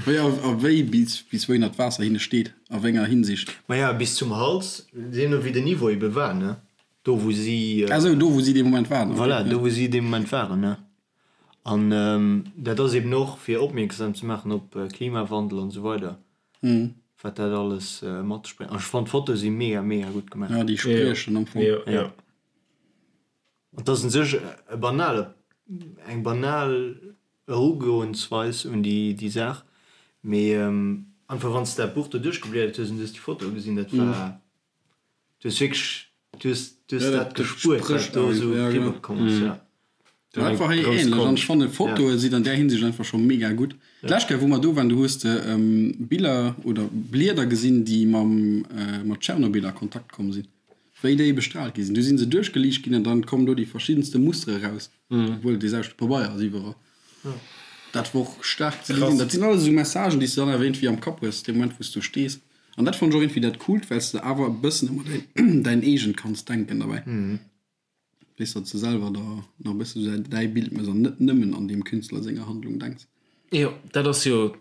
Wéi a wéi bis, bis wouhinner d'Waasser hinne steet, a wéi enger Hinsicht? Maja, bis zum Hals, deemno wéi den Niveau ebe war, ne? Do wou si. Ah sou, do wou si dee Moment waren. Voilà, do wou si dee Moment waren, ne? An dat ass eben och fir opmierksam ze maachen op Klimawandel an esou weider, wat dat alles mat sech bréngt. An ech fannen d'Fotoe si mega mega gutt gemaach. Ja, déi spriechen am Fong. Jo. An et ass un sech e banale, eng banal Erugoensweis un déi déi Saach, mee einfach wann s de dat Buch do duerchgebliedert hues an du hues déi Fotoe gesinn, dat war Du hues wierklech, du hues, du hues dat gespuert, wat do esou eriwwer komm ass, ja. Dat war hei ähnlech an ech fannen Fotoe sinn an där Hinsicht einfach scho mega gutt. D'lescht Kéier wou mer do waren, do hues de Biller oder Blieder gesinn déi mam mat Tschernobyl a Kontakt komm sinn, wéi déi bestrahlt gi sinn. Du sinn se duerchgeliicht ginn an dann kommen do déi verschiddenste Mustere raus, obwuel et dee selwechte Pabeier ass iwwerall. Dat wor och staark ze gesinn. Dat sinn alles esou Messagen déi s de dann awer iergendwéi am Kapp hues dee Moment wou s do stees. An dat fannen ech och iergendwéi dat Coolt, well s de awer e bëssen ëmmer däin däin eegent kanns denken derbäi. Weess, datt s de selwer der nach e bësse sou däi Bild méchs an net nëmmen an deem Künstler senger Handlung denks. Jo, dat ass jo,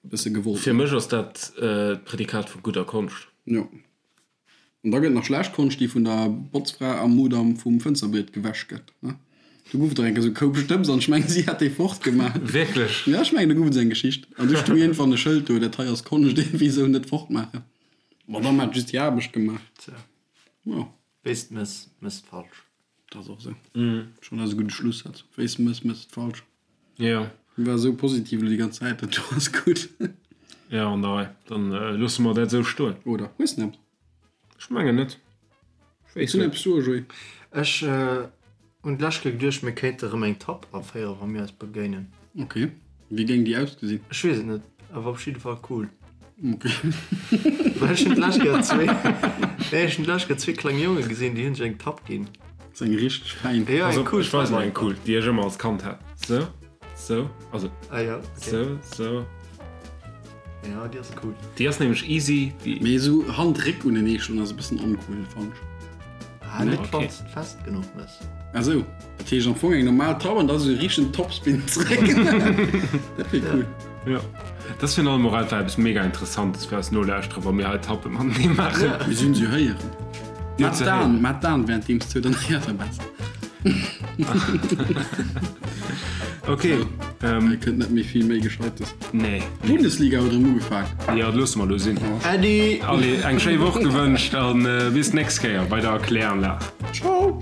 E bësse gewollt, fir mech ass dat d'Prädikat vu gudder Konscht. Jo. An da gëtt nach schlecht Konscht, déi vun der Botzfra am Mudam vum Fënsterbriet gewäsch gëtt, ne? Do gouf et och eng Kéier sou e Koup Stëbs an ech mengen, si hat dee fortgemaach. Wierklech? Ja, ech mengen, do gouf et esou eng Geschicht. An du stoung iergendwann e Schëld do, Dat hei ass Konscht, iergendwéi esou, net fortmaachen. D'Madame hat just hir Aarbecht gemaach. Tja. Jo. Wéis de mëss, mëss de falsch. Dat ass och esou. Schonn ass e gudde Schlussaz. Wéis de mëss, mëss de falsch. Jo. War esou positiv elo déi ganz Zäit, dat do ass gutt. Jo, an der Rei. Dann loosse mer dat esou stoen. Oder hues de eppes? Ech mengen net. Ech weess net. Hues du eppes soe, Joé? Ech hunn d'lescht Kéier geduecht, mir kéinte rëm eng Tapp aféieren, wa mir eis begéinen. Ok. Wéi géing déi ausgesinn? Ech weess et net, awer op jidde Fall cool. Ok. Well ech hunn d'lescht Kéier zwee, nee, ech hunn d'lescht Kéier zwee kleng Jonge gesinn, déi hunn sech eng Tapp ginn. Ass eng richteg fein. Ja, eng cool. Ech weisen der eng cool, déi ech ëmmer als Kand hat. Sou, sou, also. Ah ja, okay. Sou, sou. Ja, déi ass cool. Déi ass nämlech easy. Déi. Mee esou Hand-Réck unenee schloen ass e bëssen oncool, fannen ech. Ah, net okay. wann s de fest genuch mëss. Ah sou, dat heescht am Fong eng normal Tapp an da sou e richtegen Topspin zeréck. Dat wier cool. Jo, dat ass virun allem och einfach eppes mega Interessantes fir eis Nolauschterer, wa mir hei Tappe matenee maachen. Mir sinn se héieren. Mat d'An, mat d'An währenddeems zou, dann héiert der besser. Ok. Hei kënnt net méi vill méi Gescheites. Nee. D'Bundesliga huet erëm ugefaang. Jo, dat loosse mer elo sinn. Äddi! Allez, eng schéi Woch gewënscht a bis d'nächst Kéier bei der Kläranlag. Ciao!